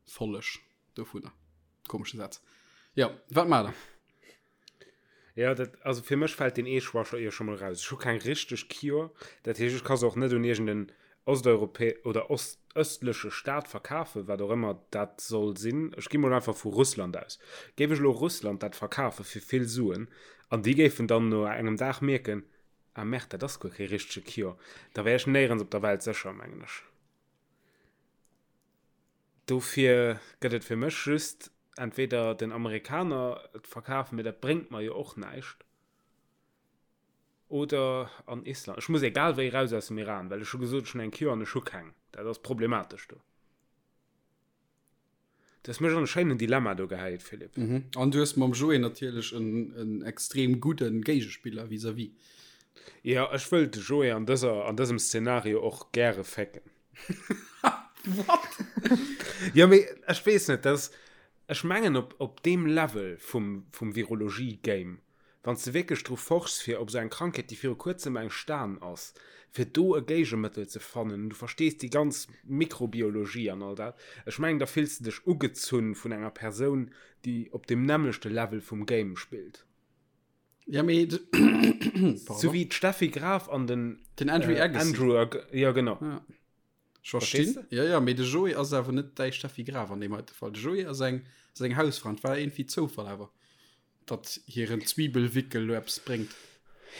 Folleg dovunner. Komesche Saz. Jo, wat maacht der? Ja, dat, also fir mech fält deen ee Choix scho jo scho mol raus. Ech hu keng richteg Cure, dat heescht, ech ka se och net un iergend en osteuropä oder ost ëstleche Staat verkafen, wat och ëmmer dat soll sinn. Ech gi mol einfach vu Russland aus. Géif ech elo Russland dat verkafe fir vill Suen an déi géifen dann no engem Dag mierken, ah merde, dat ass guer kee richtege Cure, da wär ech néierens op der Welt sécher, mengen ech. Dofir gëtt et fir mech just entweder den Amerikaner et verkafen, mee dat bréngt mer jo och näischt, oder an Island. Ech muss egal wéi raus aus dem Iran, well ech hu gesot, ech hunn eng Cure an ech hu keng. Dat ass problematesch do. Du hues mech an e schéinen Dilemma do gehäit, Philippe. Mhm. An du hues mam Joé natierlech en, en extrem gudden Géigespiller vis-à-vis. Jo, ech wëll de Joé an dëser, an dësem Szenario och gäre fécken. What? Jo, mee ech weess net, dat ass, ech mengen op, op deem Level vum, vum Virologie-Game, Wann s de wierklech dru forschs, fir op esou eng Krankheet, déi viru kuerzem entstan ass, fir do e Géigemëttel ze fannen, an du verstees déi ganz Mikrobiologie an all dat, ech mengen, da fills de dech ugezunn vun enger Persoun, déi op deem nämmlechte Level vum Game spillt. Ja, mee de, pardon. Sou wéi d'Steffi Graf an den, Den Andrew Agassi. Andrew Ag, jo genau. Ja. Ech verstinn. Verstees de? Ja, ja, mee de Joé ass awer net däi Steffi Graf an deem heite Fall. De Joé ass eng, ass eng Hausfra. Et war iergendwéi Zoufall awer, datt hiren Zwiebelwickel lo eppes bréngt.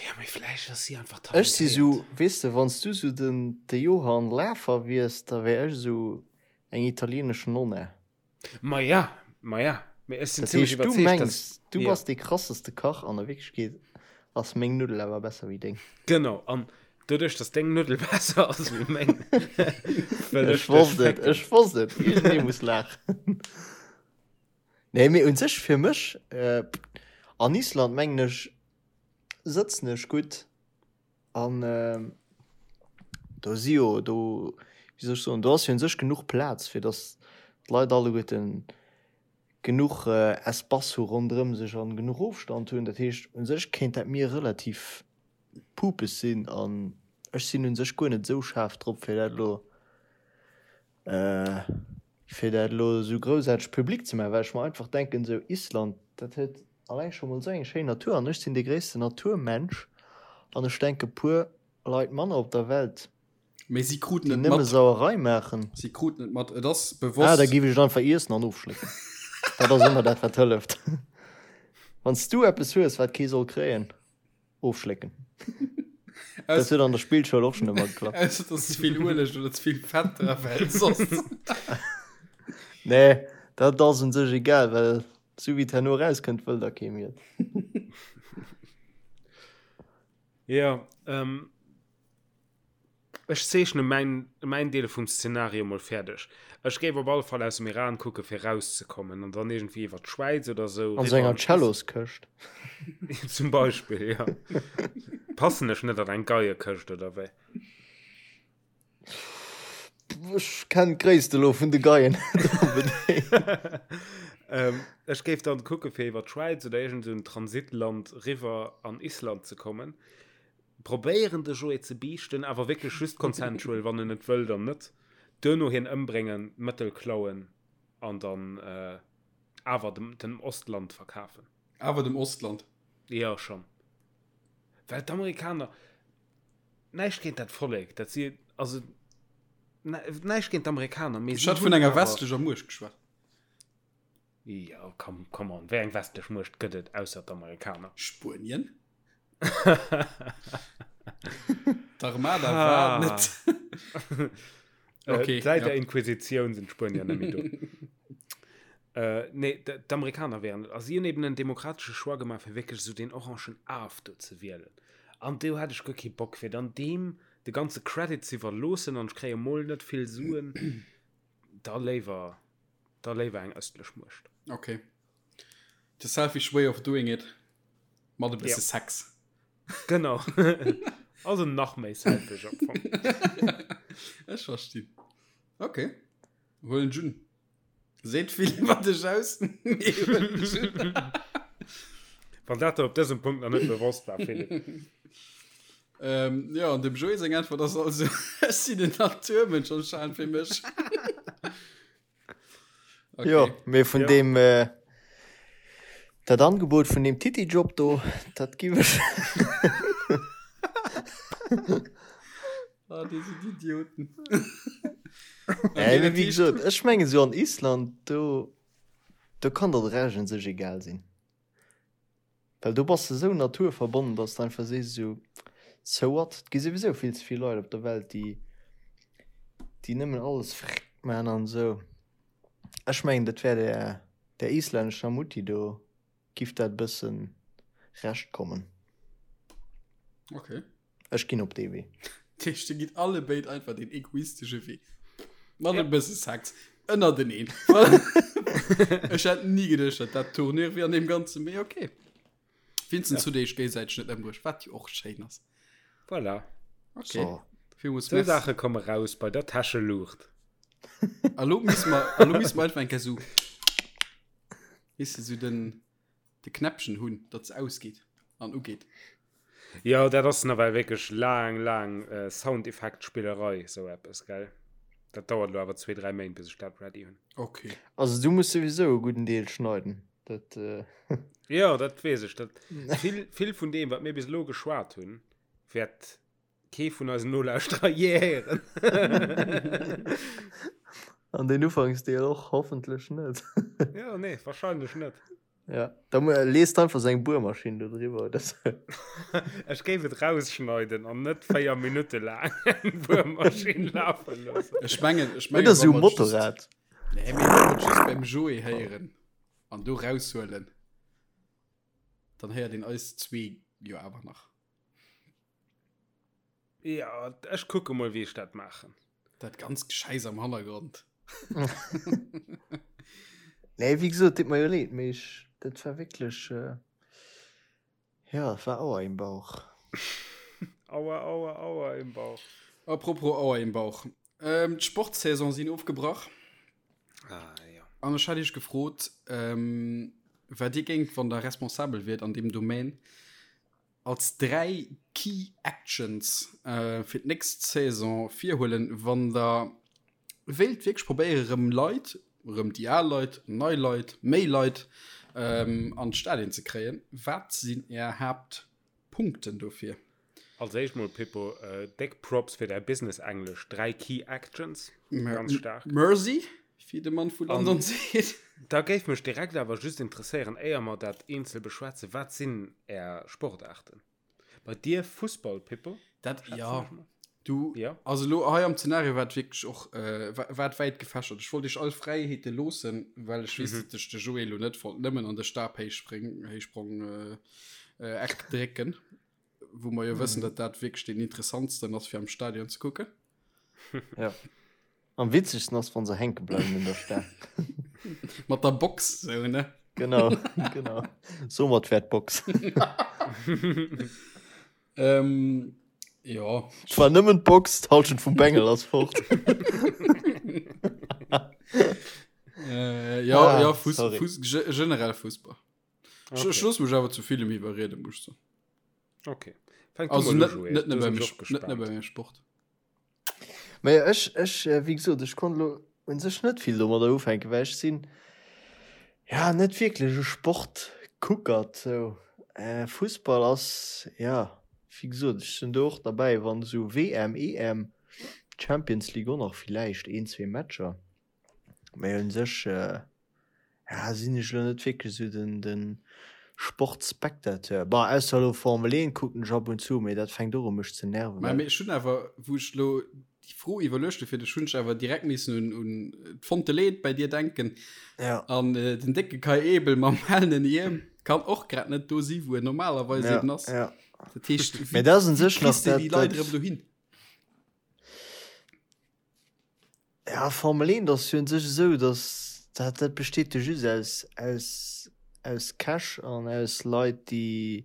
Ja, mee vläicht ass si einfach Ech si talentéiert. sou, weess de, wann s du sou den, de Johann Lafer wiers, da wär ech sou eng italienesch Nonna. Maja, maja, mee ech sinn Dat zimmlech heescht, du iwwerzeegt, mengs, dass, du jo. bass dee krasseste Kach an a Wierklechkeet ass meng Nuddel awer besser wéi deng. Genau, an doduerch, dass deng Nuddel besser ass wéi meng, wëll Ech ech dech wosst et, fécken. ech wosst et, iergendee muss laachen. Nee, mee un sech fir mech, an Island mengen ech, sëtzen ech gutt. An do si jo do, wéi soll ech soen, do ass jo un sech genuch Plaz, fir datt d'Leit alleguerten genuch Espace hu ronderëm sech an genuch Ofstand hunn. Dat heescht, un sech kéint dat mir relativ pupes sinn an ech sinn un sech guer net esou schaarf drop, fir dat elo Fir dat elo esou groussaarteg public ze maachen, well ech mer einfach denken, esou Island, dat huet alleng scho mol esou eng schéin Natur an ech sinn dee gréissten Naturmensch an ech denke puer Leit manner op der Welt, Mee si kruten déi et nëmme mat. Sauerei maachen. Si kruten et mat. Et ass Ah, da bewosst. géif ech et einfach iessen an ofschlécken. Dat ass ëmmer dat, wat hëlleft. Wann s du eppes hues, wat kee soll kréien. Ofschlécken. Dat huet an der Spillschoul och schon ëmmer geklappt. Ausser dass ze vill Ueleg oder ze vill Fett dra well soss. Nee, dat ass un sech egal, well sou wéi et herno erauskënnt, wëll da kee méi et. Jo, ähm, Ech zeechne mäin, mäin Deel vum Szenario mol fäerdeg. Ech géif op alle Fall aus dem Iran kucke fir rauszekommen an dann iergendwéi iwwer d'Schwäiz oder sou An sou riwwer enger an Is Celloskëscht. Zum Beispill, jo. Passen ech net an eng Geiekëscht oder wéi? Ech kennen d'Gréisst elo vun de Geien net onbedéngt. Ech géif dann kucke fir iwwer d'Schwäiz oder iergend sou en Transitland riwwer an Island ze kommen. Probéieren de Joé ze biichten, awer wierklech just consensual, wann en net wëll, dann net. Duerno hien ëmbréngen, d'Mëttel klauen an dann awer dem dem Ostland verkafen. Awer dem Ostland? Jo, schonn. Well d'Amerikaner, näischt géint dat Vollek, dat si, also näischt géint d'Amerikaner, mee si hunn awer. Ech hat vun enger westlecher Muecht geschwat. Jo, come, come on, wéi eng westlech Muecht gëtt et ausser d'Amerikaner? Spuenien? D'Armada war net. Okay, Säit der Inquisitioun sinn d'Spuenier net méi do. Nee, d'Amerikaner wären et. A si hunn eben en demokratesche Choix gemaach, fir wierklech esou deen orangen Af do ze wielen. An do hat ech guer kee Bock, fir dann deem de ganze Credit ze iwwerloossen an ech kréie mol net vill Suen. Da léiwer. Da léiwer eng ëstlech Muecht. Ok. The selfish way of doing it. Mat e bësse ja. Sex. Genau. also nach méi selfish am Fong. Ech verstinn. Ok. Huelen Jun. Seet vill iwwer dech aus. Mee huelen Jun. Wann dat der op dësem Punkt nach net bewosst war, Philipp. Ähm, ja, an dem Joé seng Äntwert ass also, ech sinn en Naturmënsch anscheinend fir mech. Okay. Jo, mee vun ja. dem äh, dat Angebot vun dem Titi-Job do, dat giff ech. ah, déi sinn Idioten. okay, äh, wéi gesot, ech menge sou an Island, do, do kann der de Rescht un sech egal sinn. Well do bass de sou naturverbonnen, dass de einfach sees esou, so what, et gi souwisou vill ze vill Leit op der Welt, déi déi nëmmen alles frrrk man an esou. Ech mengen dat wär der der islännescher Mutti do giff dat e bëssen recht kommen. Okay. Ech ginn op dee Wee. Dat heescht, dir gitt allebéid einfach deen egoistesche Wee. Mat e bësse Sex ënnerteneen. Ech hätt ni geduecht, datt dat d'Tournure wier an deem Ganzen, mee okay. Vincent, hutt Dir Iech géigesäiteg net ëmbruecht, wat jo och schéin ass. Voilà. Okay. So. Villmools Sou merci. Saache komme raus bei der Täscheluucht. A lo misse mer, a lo misse mer einfach eng Kéier sou, weess de, sou den, de Knäppchen hunn, datt se ausgeet an ugeet. Jo, dat ass nawell wierklech laang, laang Soundeffektspillerei, sou eppes, gell? Dat dauert elo awer zwee, dräi Méint, bis ech dat ready hunn. Ok. Also du muss souwisou e gudden Deel schneiden, dat. Jo, dat weess ech. Dat vill, vill vun deem, wat mir bis elo geschwat hunn, wäert kee vun eisen Nolauschterer jee héieren. An deen Ufanksdeel och hoffentlech net. Jo, nee, wahrscheinlech net. Ja, da lees einfach seng Buermaschinn do driwwer oder sou. Ech géif et rausschneiden an net 4 Minutte laang eng Buermaschinn lafe loossen. Ech mengen, ech mengen, Oder sou Motorrad. Nee, mee wann mer et just beim Joé héieren an do raushuelen, dann héiert een eis zwee jo awer nach. Ja, ech kucke mol, wéi ech dat maachen. Dat ganz Geschäiss am Hannergrond. Nee, wéi gesot, deet mer jo leed, mee ech, dat war wierklech, äh, ja, et war Aua im Bauch. Aua, aua, aua im Bauch. Apropos Aua im Bauch. Ähm, d'Sportsaison sinn ofgebrach. Ah, ja. An ech hat iech gefrot, ähm, wat dir géingt, wann der responsabel wiert an deem Domaine, als 3 Key Actions fir d'nächst Saison virhuelen, wann der wéilt wierklech probéiere rëm Leit, rëm déi al Leit, nei Leit, méi Leit an d'Stadien ze kréien. Wat sinn är Haaptpunkten dofir? Als éischt mol Pippo, déck Props fir däi Business-Englesch, 3 Key Actions, ganz staark. Mercy, wéi de Mann vu London seet. Da géif mech direkt awer just interesséieren, éier mer dat eenzel beschwätzen, wat sinn Är Sportaarten? Bei dir Fussball, Pippo? Dat, ja. Du, ja. Also lo hei am Zenario war et wierklech och, äh, war et wäit gefächert. Ech wollt iech all Fräiheete loossen, well ech weess, mhm. datt ech de Joé lo net wollt nëmmen an de Stabhéichspring, Héichsprong, äh, äh, Eck drécken. Wou mer jo wëssen, mhm. datt dat wierklech den interessantsten ass fir am Stadion ze kucken. Ja. Am witzegsten ass, wann se hänke bleiwen un der Staang. Mat der Box, sou, ne? Genau, genau. Soumat wär d'Box. ähm, ja. Zwar nëmmen d'Box, d'Halschent vum Bengel ass fort. äh, ja, ah, ja, Fuss, Fuss, generell Fussball. Okay. Ech looss mech awer zu villem iwwerrieden, muss ech soen. Okay. Fänk du Also mol u, net, Joé. net Do nëmme sinn beim, ech och net nëmme gespaant. beim Sport. Mä ech, ech, wéi gesot, ech konnt elo u sech net vill domadder ufänken, well ech sinn, ja, net wierklech e Sportkuckert sou. Fussball ass, ja, wéi gesot, ech sinn do och derbäi, wann esou WM, EM, Champions League och nach villäicht een, zwee Matcher, mä u sech, Ja, sinn ech elo net wierklech esou den, den Sportspectateur. Bon, ausser elo Formel 1 kucken ech ab und zu, mee dat fänkt och u mech ze nerven, Mä well. ech hunn awer, wou ech elo déi Fro iwwerluecht hu fir dech, hunn ech awer direkt missen un, un d'Fonte Leed bei dir denken. Ja. An den décke Kai Ebel mam hellen Hiem kann och grad net do si wou en normalerweis Ja, eben ass. ja. Dat heescht, Mee wéi, dat ass un wéi sech nach kriss de dat, déi Leit dat. erëm dohin? Ja, Formel 1 ass jo un sech esou, datt dat, dat besteet jo just aus, aus, aus Cash an aus Leit, déi,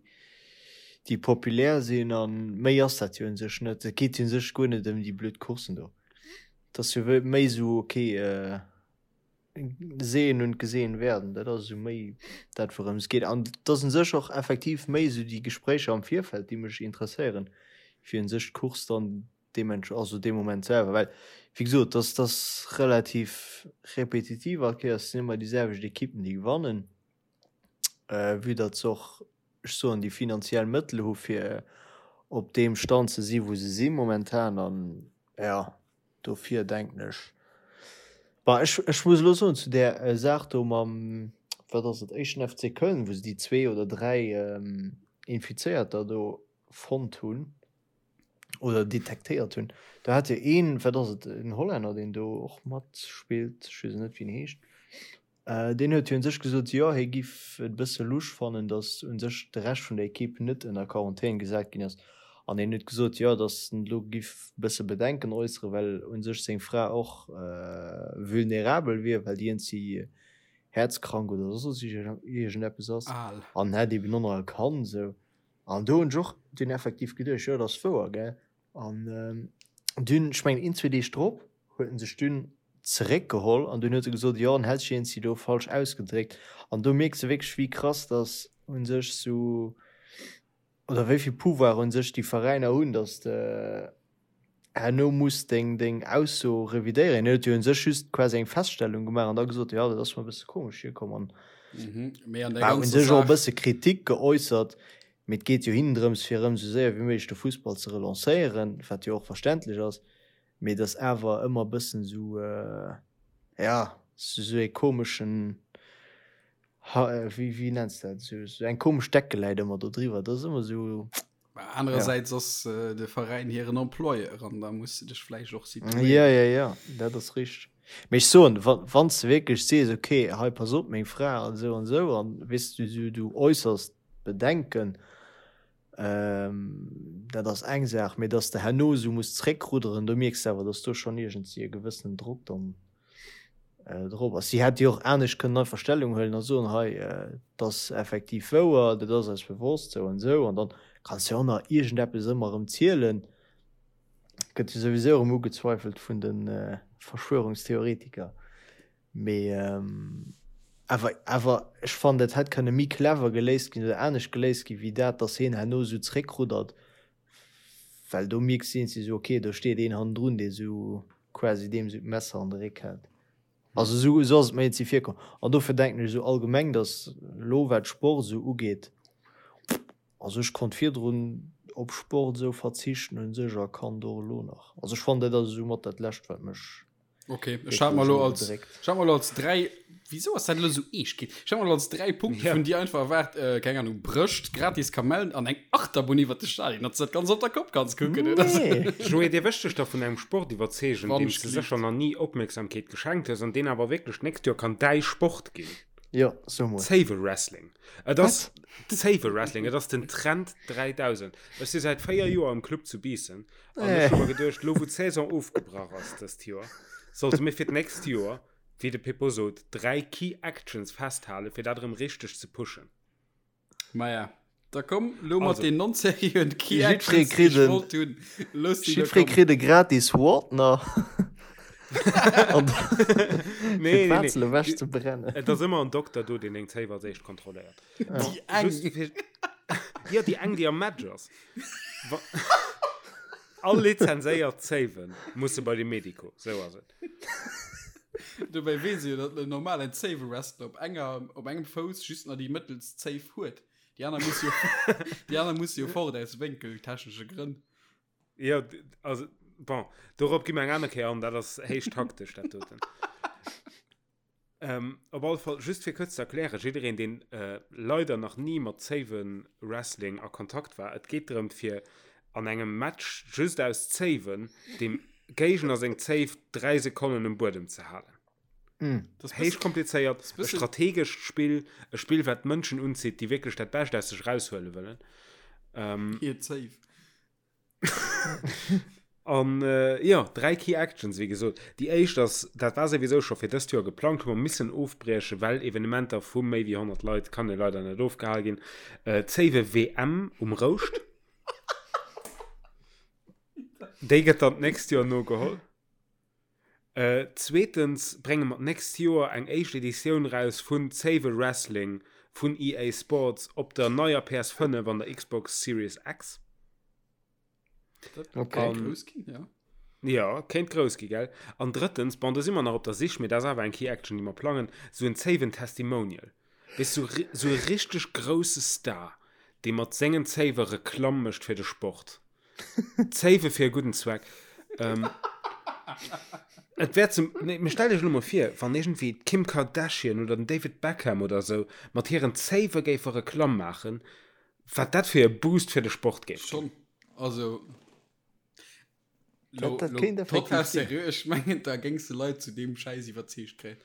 déi populär sinn a méi ass dat jo un sech net. Et geet jo un sech guer net ëm déi blöd Courssen do. Et ass jo méi esou, ok, sehen und gesehen werden, dat ass esou méi dat wourëms et geet. An et ass un sech och effektiv méi esou déi Gespréicher am Virfeld, déi mech interesséieren, wéi un sech d'Course dann deementsp also dee Moment selwer, well wéi gesot, dass dass relativ repetitiv all Kéiers sinn ëmmer déi selwecht Ekippen déi gewannen, vue datt se och, ech soen, déi finanziell Mëttel hu fir op deem Stand ze si wou se si momentan an jo dofir denken ech, bon ech ech muss elo soen zu där Saach do mam, wat ass et, éischten FC Köln, wou se déi zwee oder 3 Infizéierter do fonnt hunn, oder detektéiert hunn. Do hat jo een, wat ass et, en Hollänner, deen do och matspillt, ech weess net wéi en heescht, deen huet jo un sech gesot, jo hie giff et e bësse lusch fannen, datt un sech de Rescht vun der Ekipp net ënner Quarantän gesat ginn ass. An hien huet gesot, jo datt en elo giff e bësse Bedenken äusseren, well un sech seng Fra och vulnerabel wier, well déi eenzi häerzkrank oder soss iergendeppes ass an hätt eben och nach e Kand esou. An do hunn ech och dunn effektiv geduecht, jo, dat ass wouer, gell. An dunn, ech mengen een, zwee Deeg drop, huet en sech dunn zeréckgeholl an dunn huet e gesot, jo, en hätt sech iergendwéi do falsch ausgedréckt. An do mierks de wierklech, wéi krass dass u sech sou, oder wéi vill Pouvoir u sech déi Veräiner hunn, dass de herno muss deng deng Ausso revidéieren. Hien huet jo un sech just quasi eng Feststellung gemaach an da gesot, jo dat ass mer e bësse komesch virkomm an Mhm, mee an der war un ganzer sech och e Saach. bësse Kritik geäussert. Mee et geet jo hinnen drëms fir erëm esou séier wéi méiglech de Fussball ze relancéieren, wat jo och verständlech ass, mee et ass awer ëmmer e bëssen esou, ja, esou ee komeschen, ha, wéi wéi nenns de dat, esou esou eng komesch Decke läit ëmmer do driwwer. Dat ass ëmmer esou. Anerersäits ass de Veräin hiren Employeur an da muss de dech vläicht och situéieren. Ja, ja, ja, dat ass richteg. Mee ech soen, wa wann s de wierklech sees, okay, hei pass op, meng Fra an esou an esou an weess du, du, du äussers Bedenken, dat ass eng Saach, mee datt s de herno esou muss zréckrudderen, do mierks de awer, datt do schonn iergendwéi e gewëssenen Drock dann drop ass. Si hätt jo och anescht kënnen einfach Stellung huelen a soen, hei, et ass effektiv wouer, dat ass eis bewosst, sou an esou. An dann kanns de jo och nach iergendeppes ëmmer erëm zielen. Gëtt jo souwisou erëm ugezweifelt vun de Verschwörungstheoretiker. Mee awer, awer ech fannen, dat hätt kënne méi clever geléist ginn oder anescht geléist ginn, wéi dat, datt hien herno esou zréckruddert. Well do mierks de iergendwéi esou, okay, do steet een hannendrun, dee sou quasi deem sou d'Messer an de Réck hält. Also esou esou ass et mer iergendwéi virkomm. An dofir denken ech esou allgemeng, datt elo wat Sport esou ugeet, also ech konnt virdrun op Sport esou verzichten un sech a kann et och elo nach. Also ech fannen dat ass esou mat dat lescht wat mech Okay, ech hat mer lo als, ech hat mer lo als dräi, wieso ass dat lo sou eescht ginn? Ech hat mer lo als dräi Punkte Ja. vun dir einfach erwaart, äh, keng Ahnung, Brëscht, gratis Kamellen an eng Achterbunn iwwer de Stadion, datt s du dat ganz op der Kopp kanns kucken, oder sou. Nee. Joé, dir wëscht dech da vun engem Sport iwwerzeegen, Wann deem ech s de gelift. sécher nach ni Opmierksamkeet geschenkt hues an deen awer wierklech d'nächst Joer kann däi Sport ginn. Jo, so mol. Zéiwe-Wrestling. Et ass Zéiwe-Wrestling, et ass den Trend 3000. Ech si säit 4 Joer am Club zu Biissen An ech hu mer geduecht, lo wou d'Saison ofgebrach ass dëst Joer, sollte mir fir d'nächst Joer, wéi de Pippo sot, 3 Key Actions festhalen, fir dat erëm richteg ze pushen. Maja, da komm lo mat Also. den non-seriöen Key Jiddweree Actions, déi kritt ech en- wollt hunn. Looss déi lo Jiddweree kommen. kritt e gratis Wardner. An Nee, nee, nee. d'Wazel ewech ze brennen. Et ass ëmmer en Dokter do, deen deng Zéif als éischt kontrolléiert. Déi eng. Just fir... Jo, déi eng, déi am Match ass. Wa All lizenséiert Zéiwe musse bei de Medico, sou ass et. Dobäi weess ee jo, datt en normalen Zéiwe-Wrestler op enger, op engem Fouss just nach déi mëttelst Zéif huet. Déi aner muss jo, déi aner muss jo fort aus wénkeltechnesche Grënn. Jo, also, bon, dorop gi mer eng aner Kéier an, dat ass héich taktesch, dat doten. Ähm, op alle Fall, just fir kuerz ze erklären, jiddereen, deen äh, leider nach ni mat Zéiwe-Wrestling a Kontakt war, et geet drëm, fir an engem Match just aus Zéiwen dem Géigner seng Zéif 3 Sekonnen um Buedem ze halen. Mm. Das Héich komplizéiert, e bëssen- strategescht Spill, e Spill, wat Mënschen unzitt, déi wierklech dat Bescht aus sech raushuele wëllen. Ähm, Hir Zéif. An jo, 3 Key Actions, wéi gesot. Déi éischt ass, dat war souwisou scho fir dëst Joer geplangt, hu mer missen ofbriechen, well Evenementer vu méi wéi 100 Leit kann jo leider net ofgehal ginn, d'Zéiwe WM um Rouscht. Déi gëtt dann d'nächst Joer nogeholl. Zweetens brénge mer d'nächst Joer eng éischt Editioun raus vun Zéiwe Wrestling vun EA Sports op der neier PS5 an der Xbox Series X. Dat kéint grouss ginn, ja. Ja, kéint grouss gi, gell? An drëttens, bon, do si mer nach op der Sich, mee dat ass awer eng Key Action, déi mer plangen, sou en Zéiwen Testimonial. Weess, sou, sou e richteg grousse Star, dee mat sengen Zéiwe Reklamm mécht fir de Sport. Zéiwe fir e gudden Zweck. Ähm, et wär zum, nee, mee stellt iech elo mol vir, wann iergendwéi d'Kim Kardashian oder den David Beckham oder sou mat hiren Zéiwe géife Reklamm maachen, Wat dat fir e Boost fir de Sport géif ginn. Schon, also lo, Dat- dat lo, kéint effektiv total sinn. seriö, ech mengen da géings de Leit zu deem Schäiss iwwerzeegt kréien.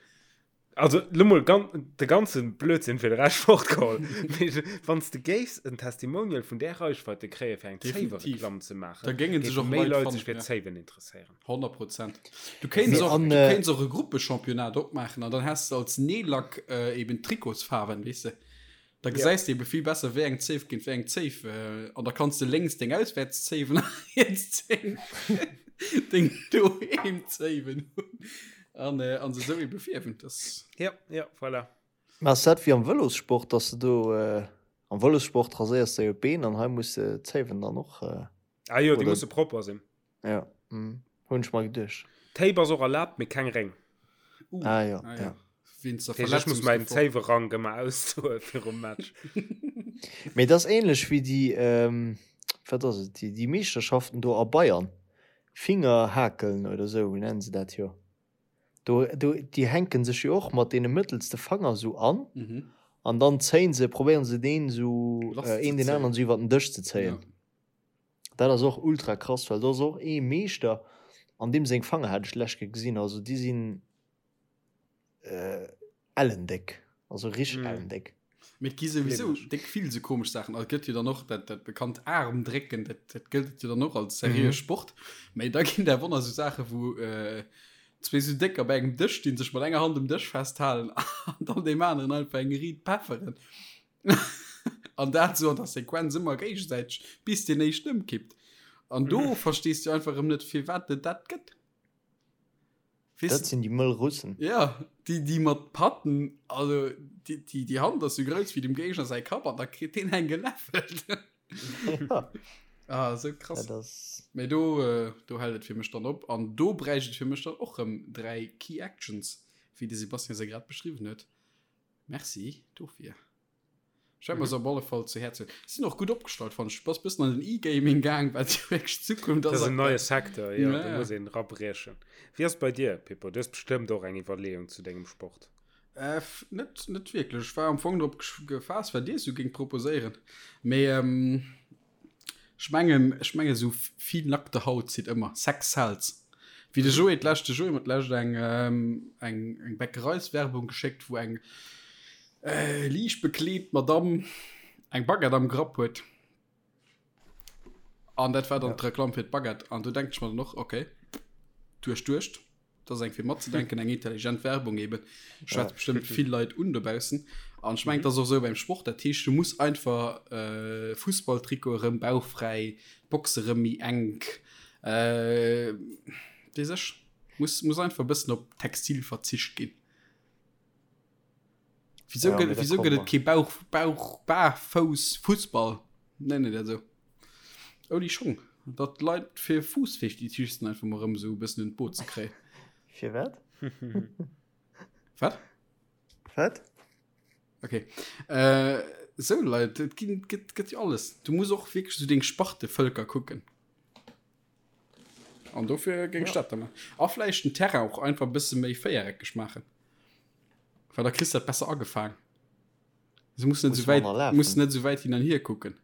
Also lo mol gan de ganze Blödsinn fir de Rescht fortgeholl. Mee wann s de géifs en Testimonial vun där Reichweite kréie fir eng Definitiv. Zéiwereklamm ze maachen, Da géinge sech géife och méi Leit Leit fannen, sech fir ja. Zéiwen interesséieren. 100 Prozent. Du kéints Mee och, an, du äh, kéints och e Gruppechampionnat opmaachen an dann häss de als Neelack äh, eben Trikotsfaarwen, weess de. Da gesäis de ebe vill besser, wéi eng Zéif géint wéi eng Zéif. An da kanns de lénks deng Auswäertszéiwen a riets deng, deng Doheemzéiwen hunn. An, äh, an se esou ebe fierwen. Das. Ja, ja, voilà. Mä ass dat wéi am Vëlossport, dass de do, am Vëlossport raséiers de jo d'Been an hei muss de d'Zéiwen dann och, Ah jo, déi oder? musse propper sinn. Ja, mm, hunn ech mer geduecht. Tape ass och erlaabt, mee keng Réng. Uh, Ah jo, ah, ja. ja. Wéinst der Dat heescht, ech muss mäin Verletzungsgefor. Zéiwerank ëmmer ausdoe virum Match. Mee dat ass ähnlech wéi déi, ähm, wat ass et, déi, déi Meeschterschaften do a Bayern. Fingerhakeln oder sou nennen se dat jo. Do, do, déi hänken sech jo och mat deene mëttelste Fanger sou an Mhm. an dann zéien se, probéieren se deen sou, Lass äh, ze een deen zéien. aneren sou iwwer den Dësch ze zéien. Ja. Dat ass och ultra krass, well do ass och ee Meeschter, an deem seng Fanger hat ech d'lescht Kéier gesinn, also déi sinn ellendéck, also richteg ellendéck. Mee et gi souwisou déck vill sou komesch Saachen. Also et gëtt jo dann och dat, dat bekannt Aarmdrécken, dat, dat gëllt jo dann och als seriöe Sport. Mee da ginn der wonner sou Saache wou zwee sou Décker bei engem Dësch stinn, sech mat enger Hand um Dësch festhalen an dann deem aneren einfach eng riit pefferen. An dat sou an der Sequenz ëmmer géigesäiteg, bis deen éischten ëmkippt. An do mm. verstees du einfach ëm net, firwat et dat gëtt. Weess dat sinn déi mëll Russen. Ja, déi, déi mat Patten, also déi, déi, déi Hand ass sou grouss wéi dem Géigner säi Kapp an da kritt deen eng geläffelt. ja. Ah, sou krass. Dat ass... Mee do, äh, do hält et fir mech dann op. An do bräicht et fir mech dann och rëm 3 Key Actions, wéi de Sebastian se grad beschriwwen huet. Merci dofir. Ech wäert mer se op alle Fall zu Häerz huelen. Sinn och gutt opgestallt, fannen ech. Du bass bëssen an den E-Gaming gaang, wat jo wierklech d'Zukunft Dat ass ass en neie aktuell. Secteur, jo, Ja, do ja. muss een erabriechen. Wéi ass et bei dir, Pippo? Du hues bestëmmt och eng Iwwerleeung zu dengem Sport. Äh, net, net wierklech. Ech war am Fong drop gefaasst, wat dir esou géingt proposéieren. Mee ähm, Ech mengen, ech mengen esou vill nackte Haut zitt ëmmer. Sex sells. Wéi de Joé d'lescht, de Joé huet d'lescht eng, eng, eng Bäckereiswerbung geschéckt, wou eng äh, liicht bekleet Madamm eng Baguette am Grapp huet. An dat war dann d'Reklamm fir d'Baguette. An do denkt ech mer dann och, okay, duerchduecht. Dat ass eng fir matzedenken, eng intelligent Werbung eben. Schwätzt ja. bestimmt vill Leit un dobaussen. An ich mengen, das och sou beim Sport. Dat heescht, du muss einfach äh, Fussballtrikot erëm bauchfräi, Boxe erëm méi enk. Äh, weess ech, muss, muss einfach e bëssen op Textil verzicht ginn. Wieso ja, gëtt, wieso gëtt et kee Bauch, Bauch, Barfouss Fussball? Nennen dat esou. Ouni Schong. Datt d'Leit fir Fuussfetischisten einfach mol erëm esou e bëssen un d'Boot ze kréien. Fir wat? Wat? Wat? Okay. Äh, sou Leit, et ginn, gëtt, gëtt jo alles. Du muss och wierklech sou deng Spartevölker kucken. An dofir géing ech dat da maachen. A vläicht den Terrain och einfach e bësse méi véiereckeg maachen. Well da kriss de dat besser agefaang. Se muss net sou wäit, muss net sou wäit hin an hier kucken.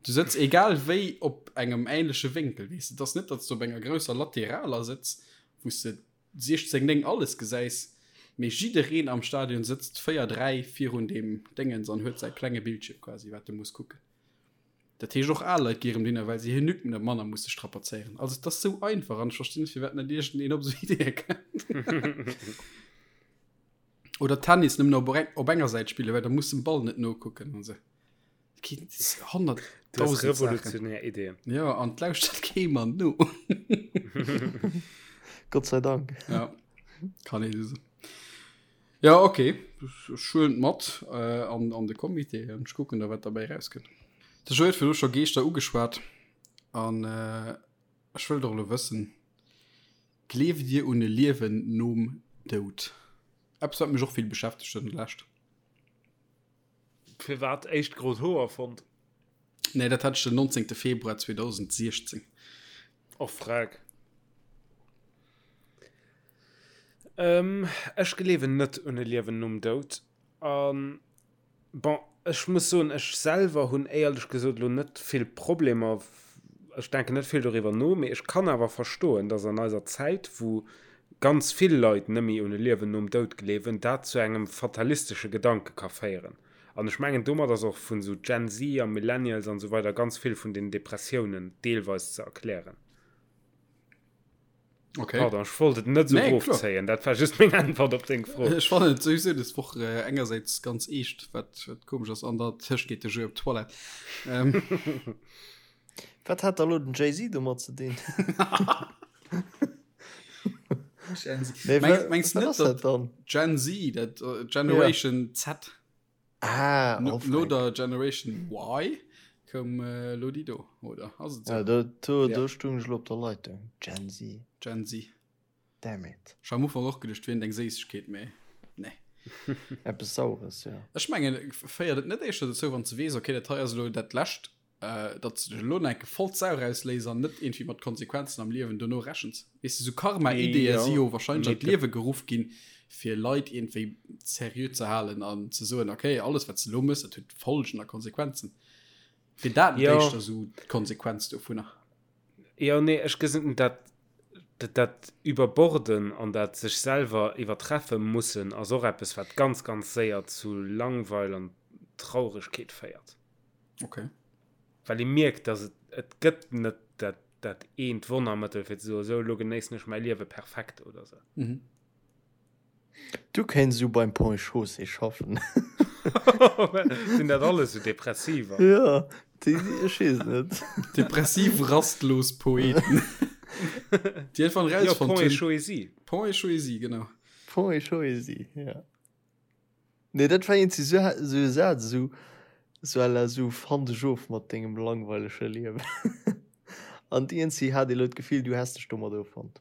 Du sëtz egal wéi op engem ähnleche Wénkel, weess de. Et ass net, datt s du op enger grousser Lateraler sëtz, wou s de 16, 9 alles gesäis, mee jiddereen am Stadion sëtzt 4, 3 virun deem Déngens an huet säi klenge Bildschierm quasi, wat e muss kucken. Dat heescht och al Leit gi erëm dohinner, well se hir Nuque net manner musse strapazéieren. Also et ass sou einfach an ech verstinn net, firwat net iergendeen op esou Ideeë kënnt. Oder Tennis nëmmen op, op enger Säit spillen, well da muss dem Ball net nokucken an se. 100 revolutionär Ideen. Ja an lauschtert kee Mann no. Gott sei Dank. Ja kann ee so. Ja okay schuelent mat äh, an, an de Comité an ech kucken da wat dabei rauskënnt. De Joe huet virdru scho Geeschter ugeschwat an äh, ech wëll doch elo wëssen, Gleeft Dir un e Liewen nom Doud? Eppes wat mech och vill beschäftegt huet an der Lescht. Firwat éischt grot Hoer fonnt? Nee, dat hat ech den 19. Februar 2016. Och freck. Ähm, ech gleewen net un e Liewen nom Doud. An Bon, ech muss soen, ech selwer hunn éierlech gesot elo net vill Problemer, ech denken net vill doriwwer no, mee ech kann awer verstoen, datt an eiser Zäit, wou ganz vill Leit nëmme un e Liewen nom Doud gleewen, dat zu engem fatalistesche Gedanke ka féieren. An ech mengen, domat ass och vun esou Gen Z a Millennials an esou weider ganz vill vun den Depressiounen deelweis ze erklären. Okay. Pardon, ech wollt et net sou Nee, kloer. rofzéien, dat war just meng Äntwert op deng Fro. Ech fannen et souwisou des Woch äh, engersäits ganz eescht, wat, wat komesch ass, an der Tëscht geet de Jeu op d'Toilette. Ähm, Wat hat da lo den Jay-Z domat ze dinn? Gen Z. Nee, Meng, wa- mengst du wat net, ass dat datt dann? Gen Z, dat äh, Generation Z, Ah, no, oh, no Frank. der Generation Y, koum äh, lo déi do, oder? Ass et Ja, sou? do, do, Ja. do stung ech lo op der Leitung. Gen Z. Gen Z. Damn it. Ech hat am Ufank och geduecht, wier eng Séissegkeet, mee nee. Eppes Saures, ja. Ech mengen, féiert et net éischter dozou, wann s de weess, okay, dat hei ass elo dat Lescht, datt s de dech elo nach enke voll d'Sau rausléis an net iergendwéi mat Konsequenzen am Liewen dono rechens. Weess de, sou Karma-Ideeë si jo wahrscheinlech an d'Liewe geruff ginn, fir Leit iergendwéi seriö ze halen an ze soen, okay, alles wat s de elo méchs, dat huet Folgen a Konsequenzen. Wier dat net éischter sou d'Konsequenz dovunner? Jo, nee, ech gesinn dat, dat Überborden an dat sech selwer iwwertreffe mussen ass och eppes, wat ganz, ganz séier zu Langweil an Trauregkeet féiert. Okay. Well ee mierkt, dass et, et gëtt net dat, dat eent Wonnermëttel fir ze soen, esou elo genéissen ech mäi Liewe perfekt oder esou. Mhm. Du kéints esou beim Pont et Chaussée schaffen. Sinn dat alles esou Depressiver? Ja, déi, ech weess net. Depressiv rastlos Poeten. Déi einfach Jo, rausfonnt Pont et hunn. Chaussée. Pont et Chaussée, genau. Pont et Chaussée, ja. Nee, dat war iergendwéi sou sou e Saz, esou sou à la sou fann dech of mat dengem langweilege Liewen. An iergendwéi hat ee lo d'Gefill, du häss dech domat offonnt.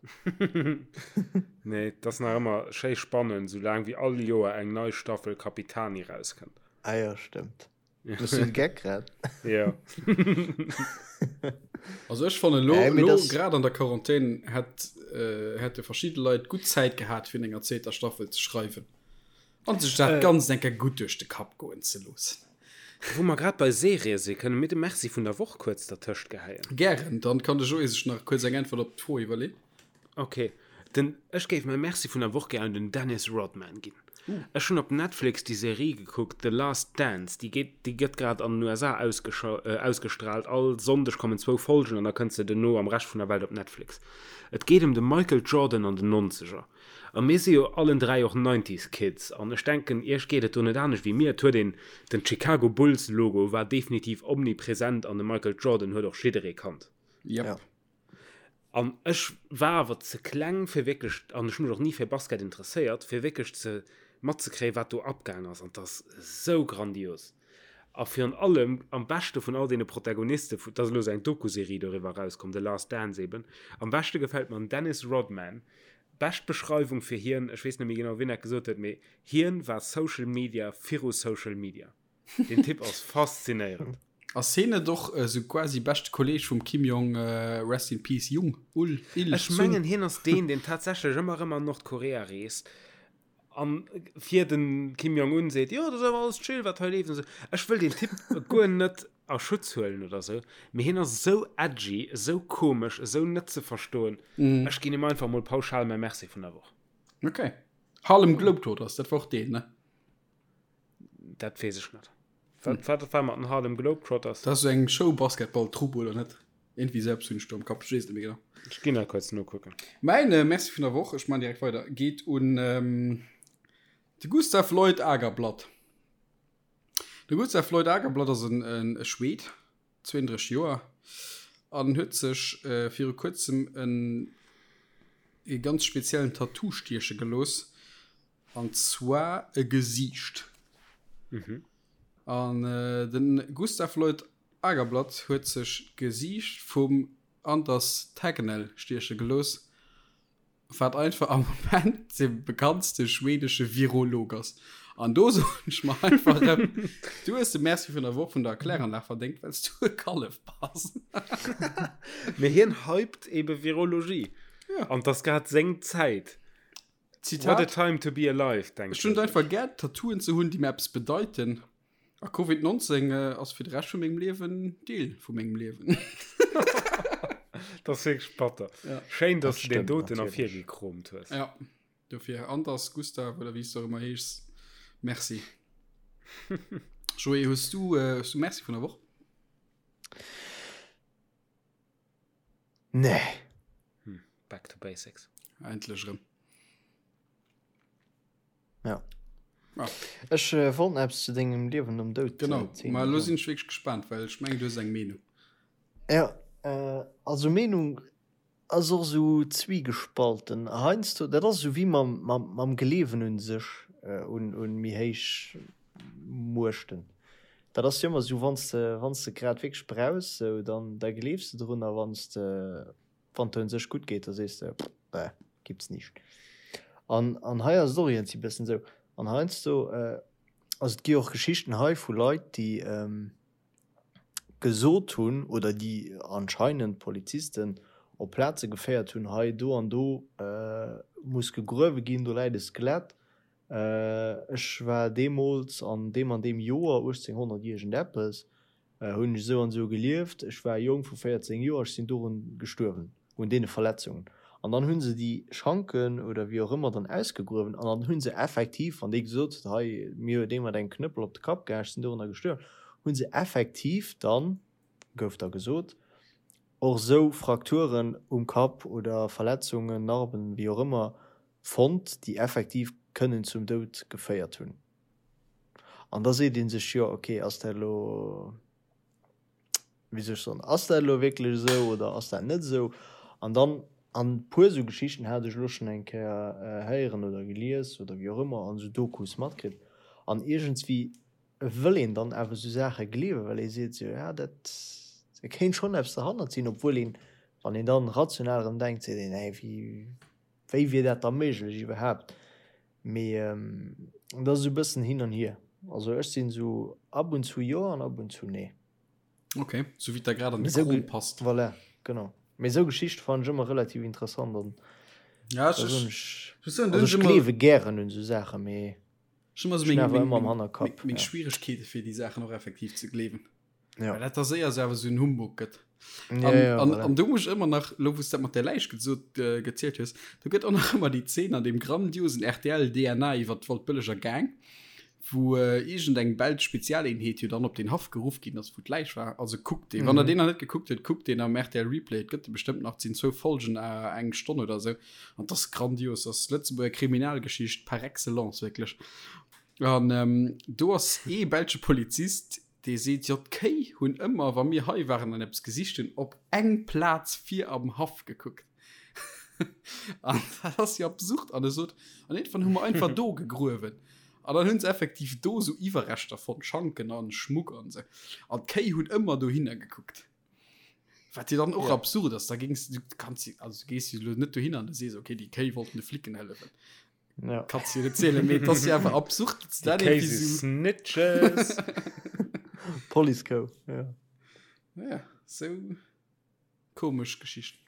Nee, et ass nach ëmmer schéi spannend, soulaang wéi all Joer eng nei Staffel Capitani rauskënnt. Ah jo, stëmmt. Hues du de Geck grad? Jo. Also ech fannen lo, Äh, mee lo das- grad an der Quarantän hätt, äh, hätte verschidde Leit gutt Zäit gehat fir enger zweeter Staffel ze schreiwen an sech dat Äh. Ganzt eng Kéier gutt duerch de Kapp goen ze loossen. Wou mer grad bei Serië si, kënne mir de Merci vun der Woch kuerz dertëscht geheien. Gären, dann kann de Joé sech nach kuerz eng Äntwert op d'Fro iwwerleen. Ok, den, ech géif mäi Merci vun der Woch gär un den Dennis Rodman ginn. Ech hunn op Netflix déi Serie gekuckt, The Last Dance, déi geet, déi gëtt grad an den USA ausgestraalt, all Sonndeg kommen zwou Folgen an da kënnt se duerno am Rescht vun der Welt op Netflix. Et geet ëm de Michael Jordan an den Nonzeger. A mir si jo allen 3 och Nineties Kids an ech denken iech geet et do net anescht wéi mir. Et huet een, den Chicago Bulls Logo war definitiv omnipresent an de Michael Jordan huet och jidderee kannt. Yep. An ech war awer ze kleng fir wierklech, an ech hu mech och ni fir Basket interesséiert, fir wierklech ze matzekréien, wat do abgaang ass. An 't ass esou grandios. A virun allem, am beschte vun all deene Protagoniste, et ass elo esou eng Doku-Serie doriwwer erauskomm, The Last Dance eben, am beschte gefält mer den Dennis Rodman. Bescht Beschreiwung fir hien, ech weess net méi genau, wien dat gesot huet, mee hien war Social Media viru Social Media. Den Typ ass faszinéierend. Ass hien net och esou quasi beschte Kolleg vum Kim Jong, rest in peace, Jung, Ul, Il, Ech Sung? mengen hien ass deen, deen tatsächlech ëmmer erëm an Nordkorea reest an fir den Kim Jong Un seet, jo dat ass awer alles chill wat hei leeft an esou. Ech wëll deen Typ guer net a Schutz huelen oder esou, mee hien ass esou edgy, esou komesch, esou net ze verstoen. Ech ginn him einfach mol pauschal mäi Merci vun der Woch. Ok. Harlem Globetrotters, dat war och deen, ne? Dat weess ech net. Wat, wat war mat den Harlem Globetrotters? Dat ass esou eng Show-Basketball-Trupp, oder net? Irgendwie esou eppes hunn ech do am Kapp, ech weess et net méi genau. Ech ginn nach kuerz nokucken. Mäin Merci vun der Woch, ech man direkt weider, geet un de Gustav Lloyd Agerblad. De Gustav Lloyd Agerblad ass en e Schwed, 32 Joer, an huet sech viru kuerzem en e ganz speziellen Tattoo stieche gelooss. An zwar e Gesiicht. An de Gustav Lloyd Agerblad huet sech d'Gesiicht vum Anders Tegnell stieche gelooss, wat einfach am Moment de bekanntste schwedesche Virolog ass. An do soen ech mer einfach erëm, du hues de Merci vun der Woch vun der Kläranlag verdéngt, well s du e Kallef bass. Mee hien hypt ebe Virologie. An 't ass grad seng Zäit. Zitat, What a time to be alive, denkt Ech hunn et einfach gär, Tattooen ze hunn, déi mir eppes bedeiten. A Covid 19 ass fir de Rescht vu mengem Liewen Deel vu mengem Liewen. Dat ass wierklech batter. Ja. Schéin, dass du deen doten ervirgekromt hues. Ja, dofir Anders, Gustav oder wéi s du och ëmmer heeschs, Merci. Joé, hues du, hues du Merci vun der Woch? Nee. Hm, back to basics. Endlech erëm. Ja. Ah. Ech äh, wollt eppes zu dengem Liewen nom Doud. Genau, äh, ma lo sinn ech wierklech gespaant, well ech mengen du hues eng Meenung. Ja, äh, also Meenung ass och sou zwiegespalten. Heiansdo, dat ass sou wéi mam, mam, mam Gleewen un sech, äh, un, un méi héich Muechten. Dat ass jo ëmmer sou, wann s de, wann s de grad wierklech brauchs, sou, dann, da gleefs de drun a wann s de, wann et der un sech gutt geet, da sees de, Bäh, gibt's nicht. An, an hei ass et och iergendwéi bëssen esou. An heiansdo, also et gi och Geschichten hei vu Leit, déi gesot hunn oder déi anscheinend Polizisten op Plaze geféiert hunn, hei do an do muss gegruewe ginn, do läit e Skelett. Ech war deemools an deem an deem Joer, 1800 iergendeppes, hunn ech esou an esou gelieft, ech war e Jong vu 14 Joer, ech sinn dorun gestuerwen, un deene Verletzungen. An dann hu se déi Schanken oder wéi och ëmmer dann ausgegruewen an dann hu se effektiv, wann dee gesot huet, hei mir huet ee mat engem Knëppel op de Kapp gehaen, ech sinn dorunner gestuerwen, hu se effektiv dann, gouf da gesot, och esou Frakturen um Kapp oder Verletzungen, Narben, wéi och ëmmer, fonnt, déi effektiv kënnen zum Doud geféiert hunn. An da seet ee sech, jo ok, ass dat elo, wéi soll ech soen, ass dat elo wierklech esou oder ass dat net esou? An dann, an e puer esou Geschichten hat ech elo schonn eng Kéier héieren oder gelies oder wéi och ëmmer an esou Dokus matkritt. An iergendswéi wëll een dann awer esou Saache gleewen, well ee seet esou, ja dat, da kéint schonn eppes derhannert sinn, obwuel een, wann een dann rational erëm denkt, seet een, hä wéi, Wéi wier dat da méiglech iwwerhaapt? Mee dat ass esou e bëssen hin an hier. Also ech sinn esou ab und zu jo an ab und zu nee. Ok, sou wéi et der grad an de Krom passt. Voilà, genau. Mee esou Geschichte fannen ech ëmmer relativ interessant an ja, ech, ech, ech, also ech gleewe gären un esou Saachen, mee ech hunn ëmmer esou meng, meng, meng, meng, meng Schwieregkeete fir déi Saachen och effektiv ze gleewen. Ja. Well dat da séier so awer so en Humbug gëtt. Ja, an, ja, an, an du muss ëmmer nach lo wous dat mat der Läich gesot äh, gezielt hues, du gëtt och nach ëmmer déi Zeen an dem grandiosen RTL DNA iwwer d'Waldbëlleger Gang, wou äh, iergend eng belsch Spezialeenheet jo dann op den Haff geruff ginn ass, wou d'Läich war. Also kuckt deen, mm. wann der mhm. den nach net gekuckt huet, kuckt den am RTL Replay, et gëtt de bestëmmt nach, sinn zwou Folgen äh, eng Stonn oder sou. An das grandios, das Lëtzebuerger Kriminalgeschicht par excellence wirklich. An ähm, do ass ee belsche Polizist, Dee seet, Jo, d'Kéi hunn ëmmer, wa mir hei waren an eppes gesicht hunn, op eng Plaz vir am Haff gekuckt. An dat ass jo absurd. An e sot, An iergendwann hu mer einfach do gegruewen. An dann hunn se effektiv do sou Iwwerreschter fonnt, Schanken an Schmuck an sou. An d'Kéi hunn ëmmer dohinner gekuckt. Wat jo dann och ja. absurd ass, da gings du kanns also du gees jo lo net dohinner an du sees okay, déi Kéi wollten de Flicken hëllefen. Ja. Kannst du net zielen, mee et ass jo awer absurd, dass dat Kéi si Snitches. Police Kou, ja. Ja, sou komesch Geschichten.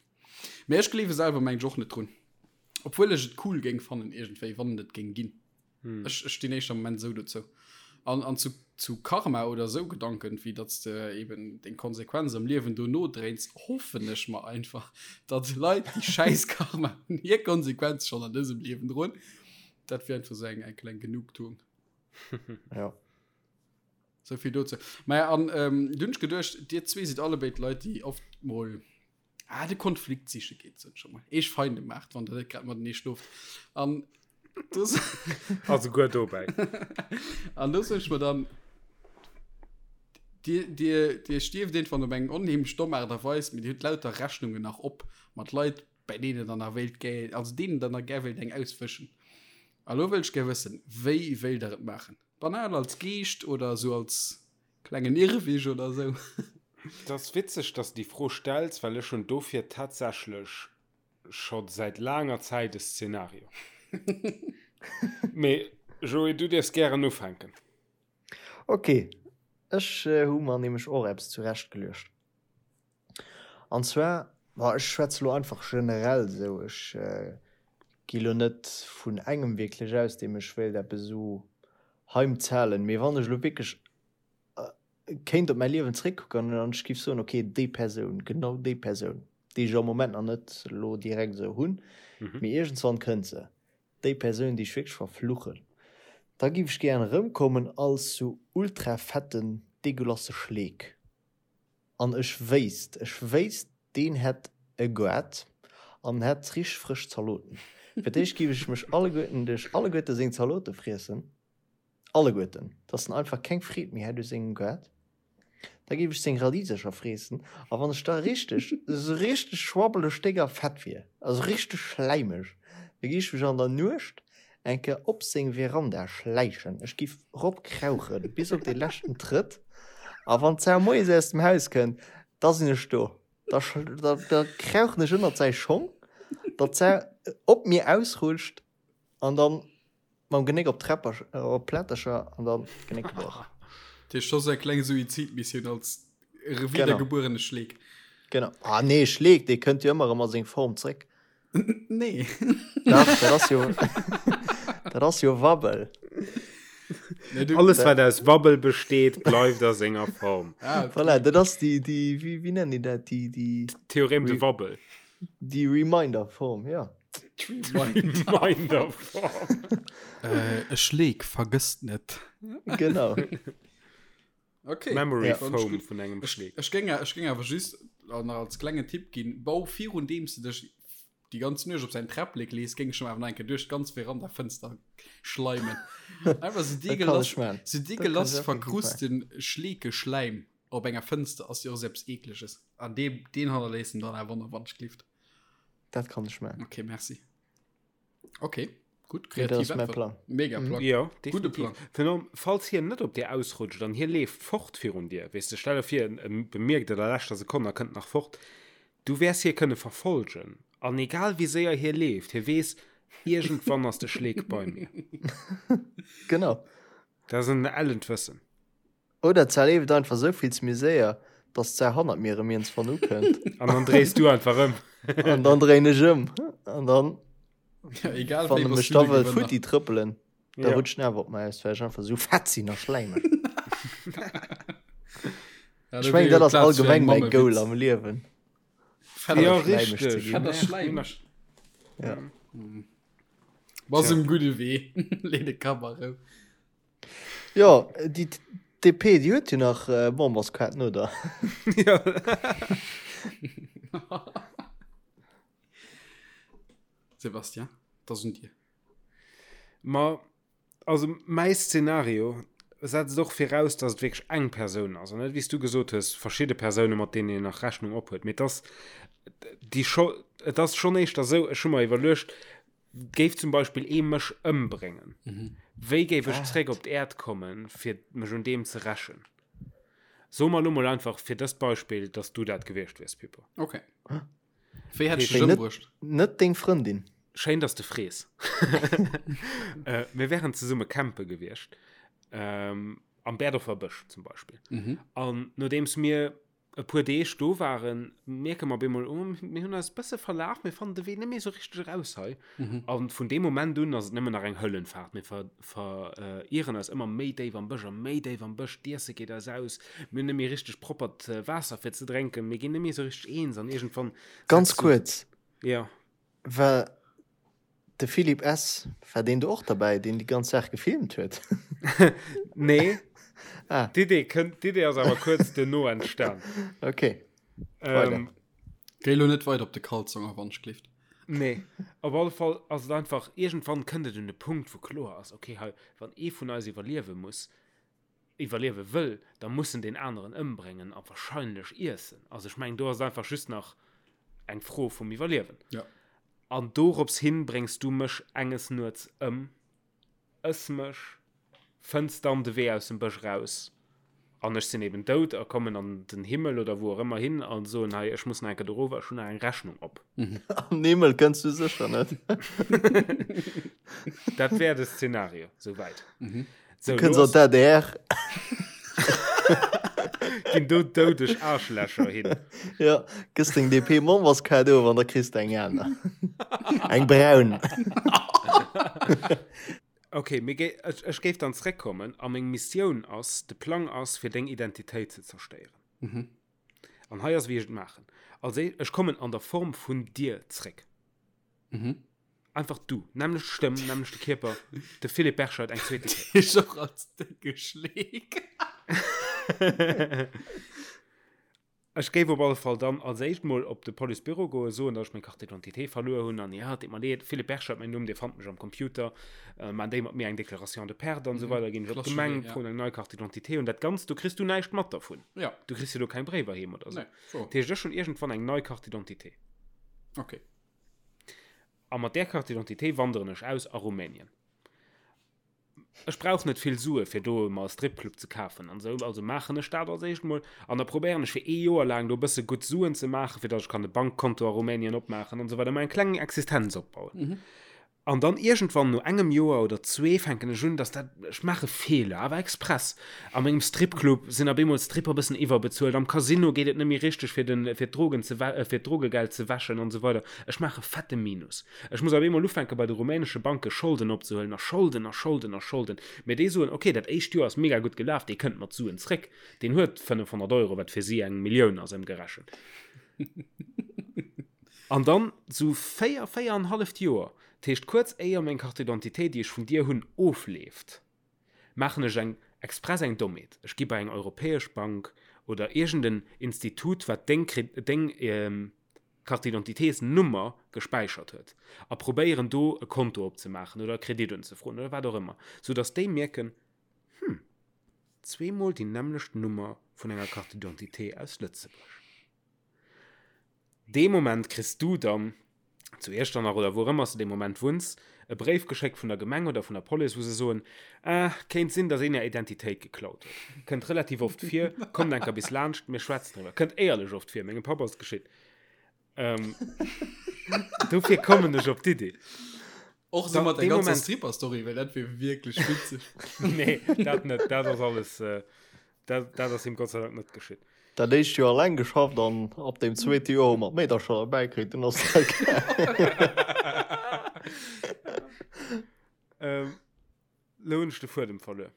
Mee ech gleewe selwer meng ech och net drun. Obwuel ech et cool géing fannen iergendwéi, wann et et géing ginn. Hm. Ech, ech stinn éischter am Moment esou dozou. An, an zu, zu Karma oder esou Gedanken, wéi datt s de eben deng Konsequenz am Liewen dono dréins, hoffen ech mer einfach, datt Leit, déi schäiss Karma hunn, hir Konsequenz schonn an dësem Liewen droen. Dat wier einfach esou eng, eng kleng Genugtuung. Ja. Sou vill dozou. Maja, an ähm, du hunn ech geduecht, dir zwee sidd allebéid Leit, déi oft mol ah, de Konflikt siche geet, sot ech emol. Eech Feinde maacht, wann der net grad matenee schloft. An do Also guer dobäi. An do sot ech mer dann, Dir, dir, dir stierft irgendwann op eng onheemlech domm Aart a Weis, mee dir hutt lauter Rechnungen nach op mat Leit, bei deenen der nach wéilt gär, also deenen der nach gär wéilt eng auswëschen. A lo wëll ech gär wëssen, wéi wéilt der et maachen? Banal als Geescht oder esou als Klengen Irrwig oder sou. Et ass witzeg, dass de déi Fro stells, well ech hunn dofir tatsächlech scho säit laanger Zäit e Szenario. Mee Joé, du dierfs gären ufänken. Ok, ech hu mer nämlech och eppes zurecht geluecht. An zwar, ma ech schwätze lo einfach generell esou, ech gi lo net vun engem wierklech aus, deem ech wéilt eppes esou heimzahlen, mee wann ech elo wierklech kéint op mäi Liewen zréckkucken an ech géif soen, ok, déi Persoun, genau déi Persoun, déi ech am Moment nach net elo direkt esou hunn, mee iergendswann kënnt se, déi Persoun, déi ech wierklech verfluchen, da géif ech gären erëmkommen als sou ultra fetten, degueulasse Schleek. An ech wéisst, ech wéisst, deen hätt e Goart an hätt richteg frësch Zaloten. Fir d'éischt giff ech mech alleguerten duerch alleguerte seng Zalote friessen, alleguerten, dass en einfach keng Freed méi hätt u sengem Goart. Da giff ech seng Radisercher freessen a wann ech da richteg, esou richteg schwabbeleg déck a fett wier, also richteg schläimeg, da giff ech mech an der Nuecht eng Kéier op seng Veranda schläichen, ech giff rop krauchen bis op dee leschten Trëtt, a wann d'Sau moies aus dem Haus kënnt, da sinn ech do, da da krauchen ech ënnert säi Schong, datt d'Sau op mir ausrutscht an dann mam Genéck op d'Träpper op d'Plättercher an dann d'Genéck gebrach. Dat heescht scho sou eng kleng Suizidmissioun als wiedergebuerene Schleek. Genau. Ah nee, Schleek, dee kënnt jo ëmmer erëm a seng Form zréck. Nee. Dach, dat ass jo, dat ass jo Wabbel. Nee, du, Alles, wat aus Wabbel besteet, bleift a senger Form. Ah, okay. Voilà, dat ass déi, déi, wéi, wéi nennen déi dat? Déi, déi. Theorem de Wabbel. Déi Reminder-Form, ja. Reminder-Form. Äh, e Schleek vergësst net. Genau. Okay. Memory ja. Foam vun engem Schleek. Ech géing ech géing awer just nach als klengen Tipp ginn, bau virun deem s de dech déi ganz Nuecht op säin Träpplek lees, géing ech em awer nach eng Kéier duerch d'ganz Verandafënster schleimen. Einfach sou deegelass, sou deegelass verkrusten Schleekeschläim op enger Fënster ass jo och sou eppes Eekleges. An dee, deen hannerléisst en dann awer nach, wann ech glift. Dat kann ech man. Okay, merci. Okay, gut, kreativ das ist mein Plan. Mega mhm. Plan. Ja, Gute Plan. Phänom, falls hien net op dir ausrutscht, dann hie leeft fort virun dir. Weess de, stell dir vir, en bemierkt et a leschter Sekonn a kënnt nach fort. Du wäers hie kënne verfolgen. An egal wéi séier hie leeft, hie weess, iergendwann ass de Schleek bei mir. Genau. Dat ass en ellent Wëssen. Oder d'Sar leeft einfach sou vill ze méi séier, dass d'Sar hannert mir erëm iergendswann ukënnt. An dann dréis du einfach ëm. An dann dréin ech ëm. An dann, Ja, egal wann wéi, e bass mech du da de wëll Gewënner. futti trëppelen, da Ja. rutscht en awer op mer aus, well ech einfach sou fett sinn a schläimeg. Ja, Ech do mengen, wier jo dat ass Plaz fir eng allgemeng mäi Mammewitz. Goal am Liewen. Fett a Ja, schläimeg ze richteg. ginn. Fett a schläimeg. Ja. Bass Tja. um gudde Wee. Lee de Kapp a Rou. Jo, déi DP, déi huet jo nach Memberskaarten, oder? Ja. Sébastien, et ass un dir. Ma, also mäi Szenario setzt och viraus, dass et wierklech eng Persoun ass an net, wéi s du gesot hues, verschidde Persoune, mat deenen een nach Rechnung ophuet. Mee et ass déi scho, et ass schonn éischter esou, ech hu mer iwwerluecht,. Géif zum Beispill ee mech ëmbréngen, wéi géif ech zréck op d'Äerd kommen, fir mech un deem ze rächen? Soe mer elo mol einfach fir dëst Beispill, dass du dat gewiescht wiers, Pippo. Okay. Wéi hätt ech dech ëmbruecht? Net deng Frëndin. Schéin, dass de frees. Mir wären zesumme campe gewiescht, am Berdorfer Bësch zum Beispill. An nodeems mir e puer Deeg do waren, mierke mer op eemol, oh, mir hunn eis e bësse verlaf, mir fannen de Wee net méi esou richteg eraus hei. Mhm. An vun deem Moment un ass et nëmmen nach eng Höllenfahrt. Mir ver, ver, äh, ieren eis ëmmer méi déif am Bësch a méi déif am Bësch, d'Iesse geet eis aus, mir hunn net méi richteg proppert äh, Waasser fir ze drénken, mir ginn net méi esou richteg eens an iergendwann Ganz setzt du- kuerz, Ja. War de Philippe S. War deen do och derbäi, deen déi ganz Saach gefilmt huet? Nee. Ah. D'Idee kënnt, d'Idee ass awer kuerz duerno entstan. Okay. Ähm, Géi lo net weider op de Kalzong a wann ech gleeft. Nee, op alle Fall ass et einfach, iergendwann kënnt et un de Punkt, wou kloer ass, okay, hei, wann ee vun eis iwwerliewe muss, iwwerliewe wëll, da muss en deen aneren ëmbréngen a wahrscheinlech iessen. Also ech mengen, do ass et einfach just nach eng Fro vum Iwwerliewen. Ja. An dorops hin bréngs du mech enges Nuets ëm, ëss mech, fënns dann de Wee aus dem Bësch raus an ech sinn eben dout a kommen an den Himmel oder wou och ëmmer hin a soen, hei, ech muss nach eng Kéier dorower, ech hunn nach eng Rechnung op. An den Himmel kënns du sécher net. Dat wär de Szenario, souwäit. Mhm. So, du kënns an d'ADR. Ginn do doudeg Aarschlächer hin. Ja, gëss deng DP-Memberskaart of an da kriss de eng aner. Eng braun. Okay, mir gé ech, ech géif dann zréckkommen a meng Missioun ass, de Plang ass, fir deng Identitéit ze zerstéieren. Mhm. An hei ass, wéi ech et maachen. Als éischt, ech kommen an der Form vun dir zréck. Mhm. Einfach du, nämmlecht Stëmm, nämmlechte Kierper, de Philippe Berscheid eng zweete Kéier. Dich och als décke Schleek. Ech géif op alle Fall dann als éischt mol op de Policebüro goen, soen, datt ech meng Carte d'identité verluer hunn an ja, et deet mer leed, Philippe Berscheid mäin Numm, Dir fannt mech am Computer, maan déi mat mir eng Déclaration de perte an esou weider, ginn ech op d'Gemeng, froen eng nei Carte d'identité un. Dat Ganzt, do kriss du näischt mat dervun. Ja. Du kriss jo do keng Bréiwer heem oder esou. Nee, wouer. Dat heescht, ech hunn iergendwann eng nei Carte d'identité. Okay. A mat där Carte d'identité wanderen ech aus a Rumänien. Ech brauch net vill Sue fir do mer e Stripclub ze kafen an esou, also maachen ech dat als éischt mol an da probéieren ech fir ee Joer laang do e bësse gutt Suen ze maachen, fir datt ech kann e Bankkonto a Rumänien opmaachen an esou weider, mer eng kleng Existenz opbauen. An dann iergendwann no engem Joer oder zwee fänken ech un, dass dat, ech maache Feeler, awer express. A mengem Stripclub sinn op eemol d'Stripper e bëssen iwwerbezuelt, am Casino geet et net méi richteg fir den, fir d'Drogen ze wä, fir d'Drogegeld ze wäschen an esou weider. Ech maache fette Minus. Ech muss op eemol ufänke bei de rumänesche Banke Scholden opzehuelen a Scholden a Scholden a Scholden. Mee déi soen, ok, dat éischt Joer ass mega gutt gelaf, dee kënnt mat Suen zréck, deen huet 500 Euro, wat fir si eng Millioun ass ëmgerechent. An dann sou 4, 4 an halleft Joer, dat heescht kuerz éier meng Carte d'identité, déi ech vun dir hunn, ofleeft, maachen ech eng express eng Dommheet, ech gi bei eng europäesch Bank oder iergend en Institut, wat deng deng Carte d'identitésnummer gespäichert huet, a probéieren do e Konto opzemaachen oder e Kredit unzefroen oder wat och ëmmer, sou datt déi mierken, Hm, zweemol déi nämmlecht Nummer vun enger Carte d'identité aus Lëtzebuerg. Dee Moment kriss du dann, zu Iechternach oder wou och ëmmer s de dee Moment wunns, e Bréif geschéckt vun der Gemeng oder vun der Police, wou se soen, Ah, kéint sinn, dass een är Identitéit geklaut huet. Kënnt relativ oft vir, kommt enker bis laanscht, mir schwätzen driwwer. Kënnt éierlech oft vir, mengem Papp ass et geschitt. Ähm, dofir kommen ech op d'Idee. Och so mat der ganzer Stripper-Story, well dat wier wierklech witzeg. Nee, dat net, dat ass alles, äh, dat, dat ass him Gott sei Dank net geschitt. Dat éischt Joer alleng geschafft an ab dem zweete Joer hu mer d'Meedercher derbäi kritt, dunn ass dat Ähm, lo hunn ech de Fuedem verluer.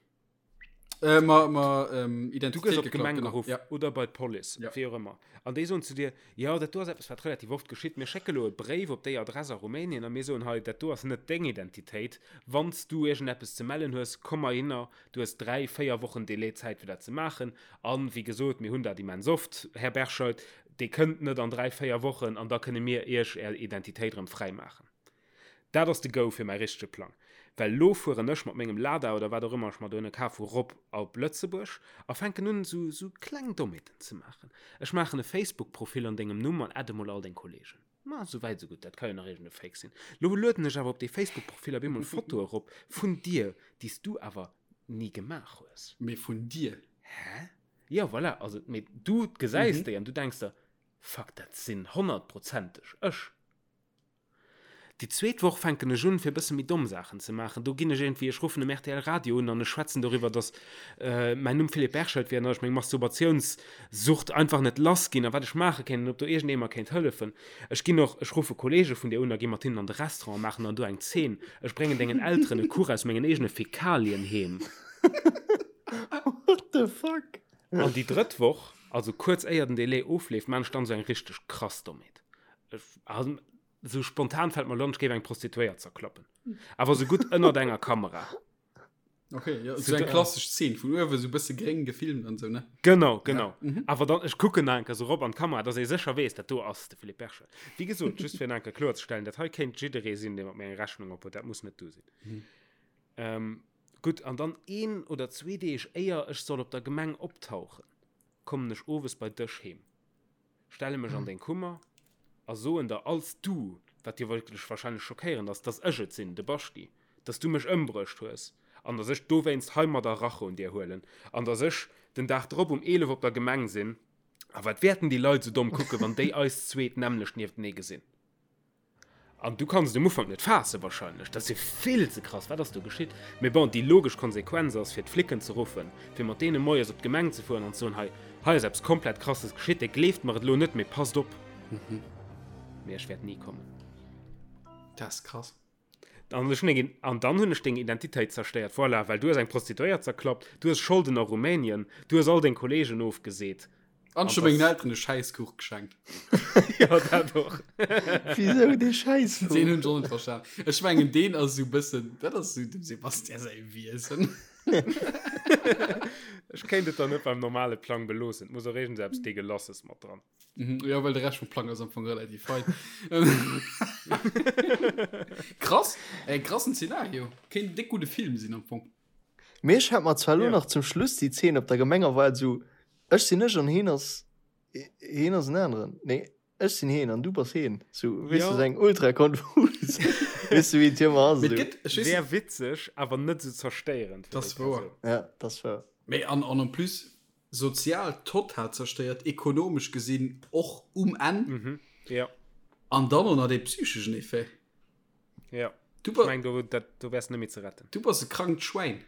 Äh, ma, ma, ähm, Du gëss Identitéit op d'Gemeng geklaut, genau. geruff Ja. oder bei d'Police, Ja. wéi och ëmmer. An déi soen zu dir, jo, dat do ass eppes, wat relativ oft geschitt, mir schécke lo e Bréif op déi Adress a Rumänien a mir soen, hei, dat do ass net deng Identitéit, wann s du iergendeppes ze mellen hues, komm heihinner, du hues 3, 4 Wochen Delai Zäit, fir dat ze maachen. An, wéi gesot, mir hunn dat immens oft, Här Berscheid, Dir kënnt net an 3, 4 Wochen an da kënne mir Iech Är Identitéit erëm fräimaachen. Dat ass de Go fir mäi richtege Plang. Well elo fueren ech mat mengem Lada oder wat och ëmmer ech mer dohinne kaf hu rop op Lëtzebuerg a fänken un esou esou kleng Dommheeten ze maachen. Ech maachen e Facebook-Profil an dengem Numm an adde mol all deng Kollegen. Ma sou wäit sou gutt, dat ka jo nach iergend e Fake sinn. Lo lueden ech awer op dee Facebook-Profil op eemol Fotoe erop vun dir, déi s du awer ni gemaach hues. Mee vun dir? Hä? Jo, voilà, also, mee du gesäis déi an du denks der, Fuck, dat sinn honnertprozenteg ech. Déi zweet Woch fänken ech un, fir e bësse méi domm Saachen ze maachen. Do ginn ech iergendwéi, ech ruffen um rtl Radio un an ech schwätzen doriwwer, dass mäin Numm Philippe Berchelt wier an dass ech meng Masturbatiounssucht einfach net lass ginn a wat ech maache kéint an ob do iergendee mer kéint hëllefen. Ech ginn och, ech ruffe Kolleege vun dir un a gi mat hinnen an de Restaurant a maachen dann do eng Zeen. Ech bréngen dengen Elteren e Kuch aus mengen eegene Fäkalien heem. What the fuck? An déi drëtt Woch, also kuerz éier den Delai ofleeft, maan ech dann esou eng richteg krass Dommheet. Ech, also, Sou spontan fällt mer lo an, ech géif eng Prostituéiert zerklappen. Awer sou gutt ënnert enger Kamera. Okay, ja, sou eng klassesch Zeen, vun uewe sou bësse gréng gefilmt an sou, ne? Genau, genau. Ja. Mhm. Awer dann, ech kucken nach eng Kéier sou rop an d'Kamera, dass ee sécher weess, dat do ass de Philippe Berger. Wéi gesot, just fir nach eng Kéier kloerzestellen, dat hei kéint jidderee sinn, dee mat mir eng Rechnung op huet, dat muss net du sinn. Mhm. Ähm, gutt, an dann een oder zwee Deeg éier ech soll op der Gemeng optauchen, kommen ech owes bei dech heem. stelle mech an deng Kummer a soen der als du, wat jo wierklech wahrscheinlech schockéierend ass, dass ech et sinn, de Baschti, dass du mech ëmbruecht hues an dass ech dowéinst heimadder Rache un dir huelen an dass ech den Dag drop um 11 op der Gemeng sinn. A wat wäerten déi Leit esou domm kucken, wann déi eis zweet d'nämmlecht nieftenee gesinn? An du kanns et um Ufank net faassen wahrscheinlech, dat ass jo vill ze krass, wat ass do geschitt? Mee bon, déi logesch Konsequenz ass fir d'Flicken ze ruffen, fir mat deene moies op d'Gemeng ze fueren an ze soen, hei, hei ass eppes komplett krasses geschitt, dir gleeft mer et elo net, mee passt op. Mee ech wäert ni kommen. Dat ass krass. An ech hunn eng, an dann hunn ech deng Identitéit zerstéiert, voilà, well du hues eng Prostituéiert zerklappt, du hues Scholden a Rumänien, du hues all deng Kollegen ofgeseet. An ech hu mengen Elteren e Schäisskuch geschenkt. Jo, dat och. Wisou dee Schäisskuch? Deen hunn ech och net verstan. Ech mengen, deen ass esou e bëssen, dat ass esou dem Sebastian säi Wiesen. Ech kéint et dann net beim normale Plang beloossen. Et muss och iergends eppes Degelasses mat dran. Mhm, jo, well de Rescht vum Plang ass am Fong relativ fein. Krass, e krassen Zeenario. Kéint en déck gudde Film sinn am Fong. Mee ech hat mer zwar elo nach zum Schluss déi Zeen op der Gemeng erwaart, esou ech sinn ech an heen ass heen ass en aneren, nee ech sinn heen an du bass heen, sou weess du, sou eng ultra konfus, weess du wéi et ëmmer ass Mee et esou. gëtt, ech weess Wär witzeg, awer net esou zerstéierend fir déi Das wouer. Persoun. Ja, das wouer. Mee an an en plus sozial total zerstéiert, ekonomesch gesinn och um Enn. Mhm, ja. An dann och nach dee psycheschen Effet. Ja. Du Ech ba meng, do, dat, do wärs net méi ze retten. du bass e krankt Schwäin.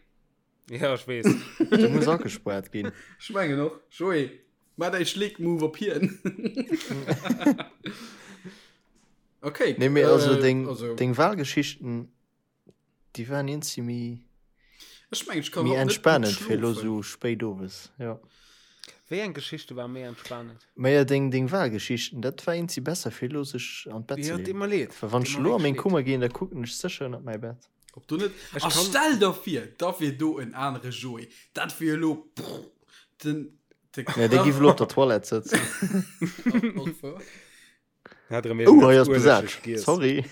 Ja, ech weess. Du muss agespuart ginn. Ech mengen och. Joé, maach däi Schleek-Move op hien. Okay. Nee, mee also äh, deng, also, deng Wahlgeschichten, déi waren iergendwéi méi, ech mengen, ech kann méi haut net gutt entspanend fir elo schlofen. sou spéit owes. Ja. Wéi eng Geschichte war méi entspanend? Maja, deng, deng Wahlgeschichten, dat war iergendwéi besser fir elo sech an d'Bett ze Ja, deet leeën. mer leed. Well wann Deet ech mer elo a wierklech meng leed. Kummer ginn, da kucken ech sécher ënnert mäi Bett. Ob du net Ech a kann. stell der vir, da wier do en anere Joé. Dat wier elo prr, den de Nee, dee giff elo op der Toilette sëtzen. Och wouer. Hat erëm Oh, hei iergendeppes ass besat. Uelegesch giess. Sorry.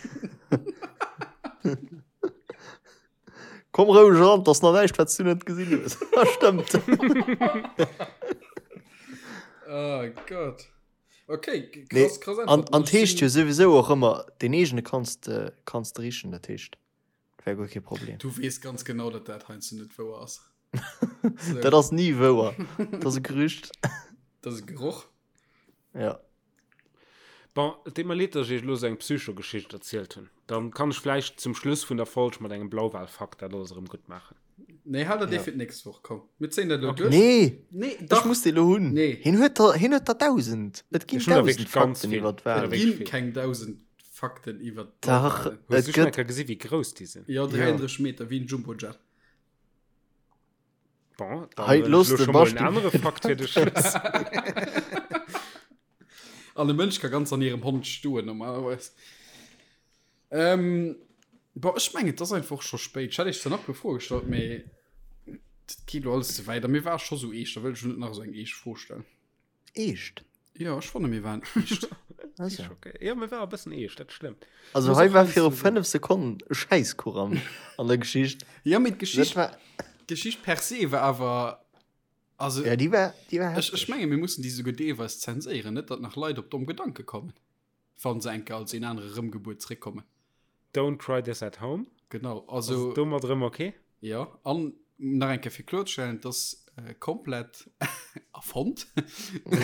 Komm roueg eran, 't ass nach näischt, wat s du net gesinn hues. Ah, stëmmt. Oh Gott. Okay, Nee, krass, krass an, Äntwert. an 't heescht jo souwisou och ëmmer, deen eegene kanns de, kanns de richen, dat heescht, wär guer kee Problem. Du weess ganz genau, datt dat heiansdo net wouer ass. So. Dat ass ni wouer. Dat ass e Gerücht. Dat ass e Geroch. Ja. Bon, et deet mer leed, dass ech iech elo esou eng Psycho-Geschicht erzielt hunn. Dann kann ech vläicht zum Schluss vun der Folg mat engem Blauwal-Fakt dat alles erëm gutt maachen. Nee, hal dat dee Ja. fir d'nächst Woch. Komm, mir zéien dat elo Okay. duerch. Nee, Nee, ech dach. muss dee lo hunn. Nee. Hien huet der, hien huet der 1000. Et ginn Ech hunn der 1000 wierklech ganz Fakten vill. iwwer Ech hunn der d'Walen. Et wierklech ginn vill. keng 1000 Fakten iwwer Dach, d'Blauwalen. Hues et du schonn eng gëtt. Kéier gesi wéi grouss déi sinn? Jo, Ja. 33 Meter, wéi en Jumbojet. Bon, dann Hei, hunn ech looss elo de scho mol en Basti. anere Fakt fir de Schluss. An e Mënsch ka ganz an hirem Hond stoen normalerweis. Ähm, boah, ech mengen, et ass einfach scho spéit. Ech hätt iech zwar nach e puer Froe gestallt, mee dat geet lo alles ze wäit. A mir ware scho sou eescht, da wëll ech lo net nach esou eng eescht Fro stellen. Eescht? Jo, ech fanne mir waren eescht. Also. Okay. Ja, mir war e bëssen eescht, dat stëmmt. Also Muss hei och war heiansdo viru sinn. 5 Sekonnen e Schäisskuch am, an der Geschicht. Ja, mee Dat d'Geschicht, war, d'Geschicht per se war awer, also ja, déi war, déi war ech, ech hefteg. menge mir mussen déi souguer deelweis zenséieren, net datt nach Leit op domm Gedanke kommen. Wann se enke als een anere Rëmgebuert zréckkommen. Don't try this at home. Genau, also. Ass domat erëm ok? Jo, an nach eng Kéier fir kloerzestellen, et ass komplett erfonnt.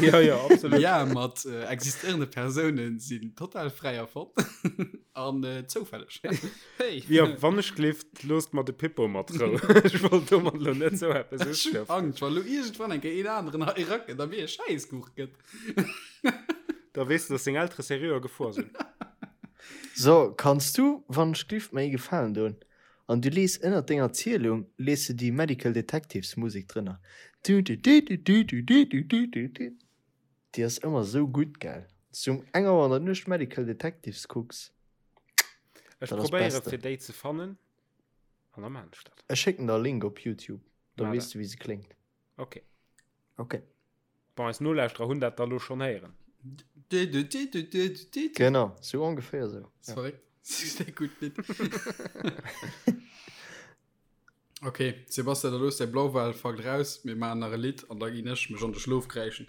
Jo, jo, absolut. Ja, mat existéierende Persounen sinn total fräi erfonnt an zoufälleg. Hey. Jo, wann ech gleeft, loosst mer de Pippo mat Rou. Ech wollt domat elo net sou eppes Ech hunn Angscht, wa lo iergendwann eng Kéier een aneren hei erakënnt a mir e Schäisskuch gëtt. Da weess de, dass seng Eltere seriö a Gefor sinn. So, kanns du, wann ech glift, mer ee Gefalen doen? An du lees ënnert denger Zielung lees de déi Medical Detectives Musek drënner. Du-du-du-du-du-du-du-du-du-du. Déi ass ëmmer sou gutt, gell? Wanns du um eng Auer an der Nuecht Medical Detectives kucks, Ech dat ass probéiere Beste. fir déi ze fannen an da maan ech dat. Ech schécken der e Link op Youtube, da Maa weess dat. du wéi se kléngt. Ok. Ok. Bon, eis Nolauschterer hunn dat da lo schonn héieren. Genau, sou ongeféier sou. Ja. Verréckt. Sehr gutt Lidd. Okay, Sebastian, da looss däi Blauwalfakt raus. Mir maachen nach e Lidd an da ginn ech mech an de Schlof kräischen.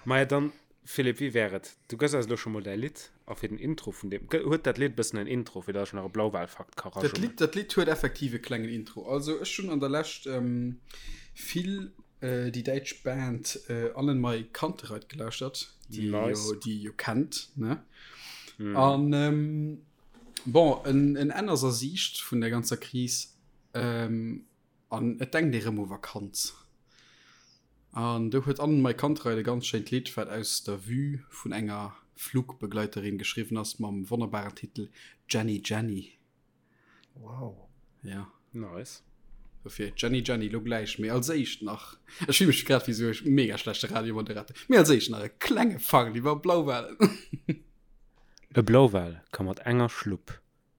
Maja, dann, Philippe, wéi wär et, du gëss eis elo scho mol däi Lidd a fir den Intro vun deem, huet dat Lidd e bëssen en Intro, fir datt ech nach e Blauwalfakt ka Dat Lidd, dat Lidd huet effektiv e klengen Intro. Also ech hunn an der Lescht vill déi däitsch Band Annenmai Kantereit gelauschtert, déi nice. jo, déi jo kennt, ne? Mm. An ähm, bon, en, en Enn ass a Siicht vun der ganzer Kris ähm, an et denkt ee rëm u Vakanz. An do huet Annenmai Kantereit e ganz schéint Lidd, wat aus der Vue vun enger Flugbegleiterin geschriwwen ass, mam wonnerbaren Titel Jenny Jenny. Wow. Ja. Nice. Dofir Jenny Jenny lo gläich, mee als éischt nach, ech fille mech grad wéi sou e mega schlechte Radiomoderator, mee als éischt nach e klenge Fakt iwwer Blauwalen. E Blauwal ka mat enger Schlupp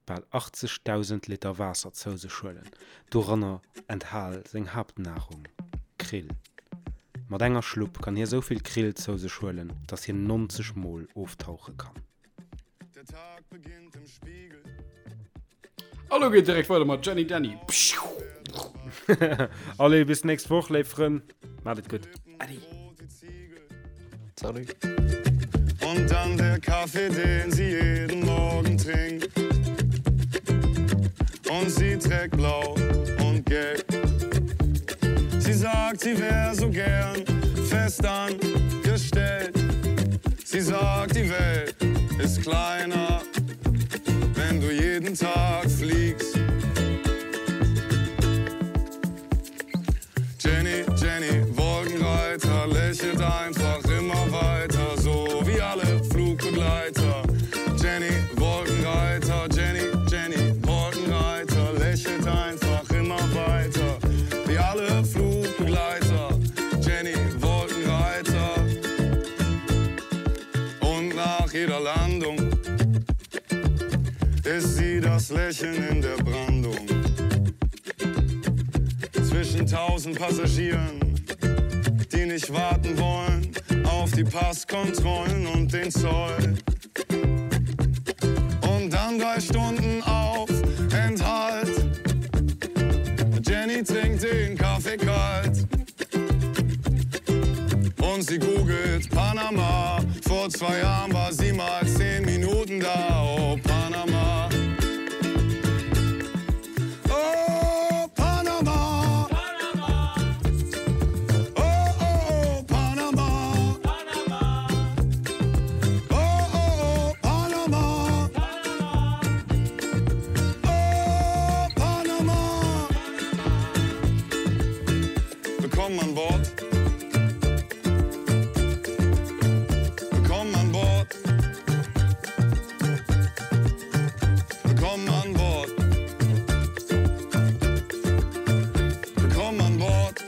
bal 80.000 Liter Waasser zou sech huelen, doranner enthal seng Haaptnarung, Krill. Mat enger Schlupp kann hie sou vill Krill zou sech huelen, datt hien 90 Mol oftauche kann. Hallo geht direkt weiter mat Jenny Danny. Allez, bis nächst Woch, léif Frënn. Maat et gutt. Adi. Salut. Und dann der Kaffee, den sie jeden Morgen trinkt. Und sie trägt blau und gelb. Sie sagt, sie wär so gern fest angestellt. Sie sagt, die Welt ist kleiner, wenn du jeden Tag fliegst. Jenny, Jenny, Wolkenreiter, lächelt einfach immer weiter, so wie alle Flugbegleiter. Jenny, Wolkenreiter, Jenny, Jenny, Wolkenreiter, lächelt einfach immer weiter, wie alle Flugbegleiter. Jenny, Wolkenreiter. Und nach jeder Landung ist sie das Lächeln in der Brandung. Zwischen tausend Passagieren, die nicht warten wollen auf die Passkontrollen und den Zoll. Und dann drei Stunden auf Enthalt. Jenny trinkt den Kaffee kalt. Und sie googelt Panama. Vor zwei Jahren war sie mal zehn Minuten da. Oh, Panama. Oh, Panama. Panama. Oh, oh, oh, Panama. Panama. Oh, oh, oh, Panama. Panama. Oh, Panama. Willkommen an Bord. Willkommen an Bord. Willkommen an Bord. Willkommen an Bord.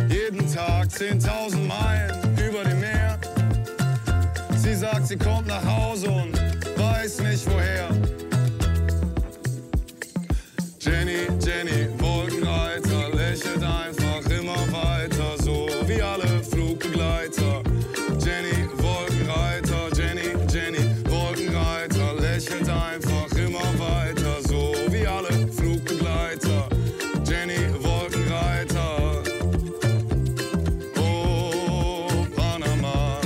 Jeden Tag 10.000 Meilen über dem Meer. Sie sagt, sie kommt nach Hause und weiß nicht woher. Jenny, Jenny, Wolkenreiter, lächelt einfach immer weiter, so wie alle Flugbegleiter. Jenny, Wolkenreiter, Jenny, Jenny, Wolkenreiter, lächelt einfach immer weiter, so wie alle Flugbegleiter. Jenny, Wolkenreiter. Oh, Panama.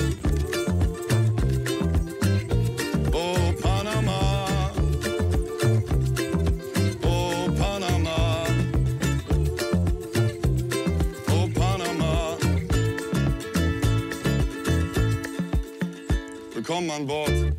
Willkommen an Bord.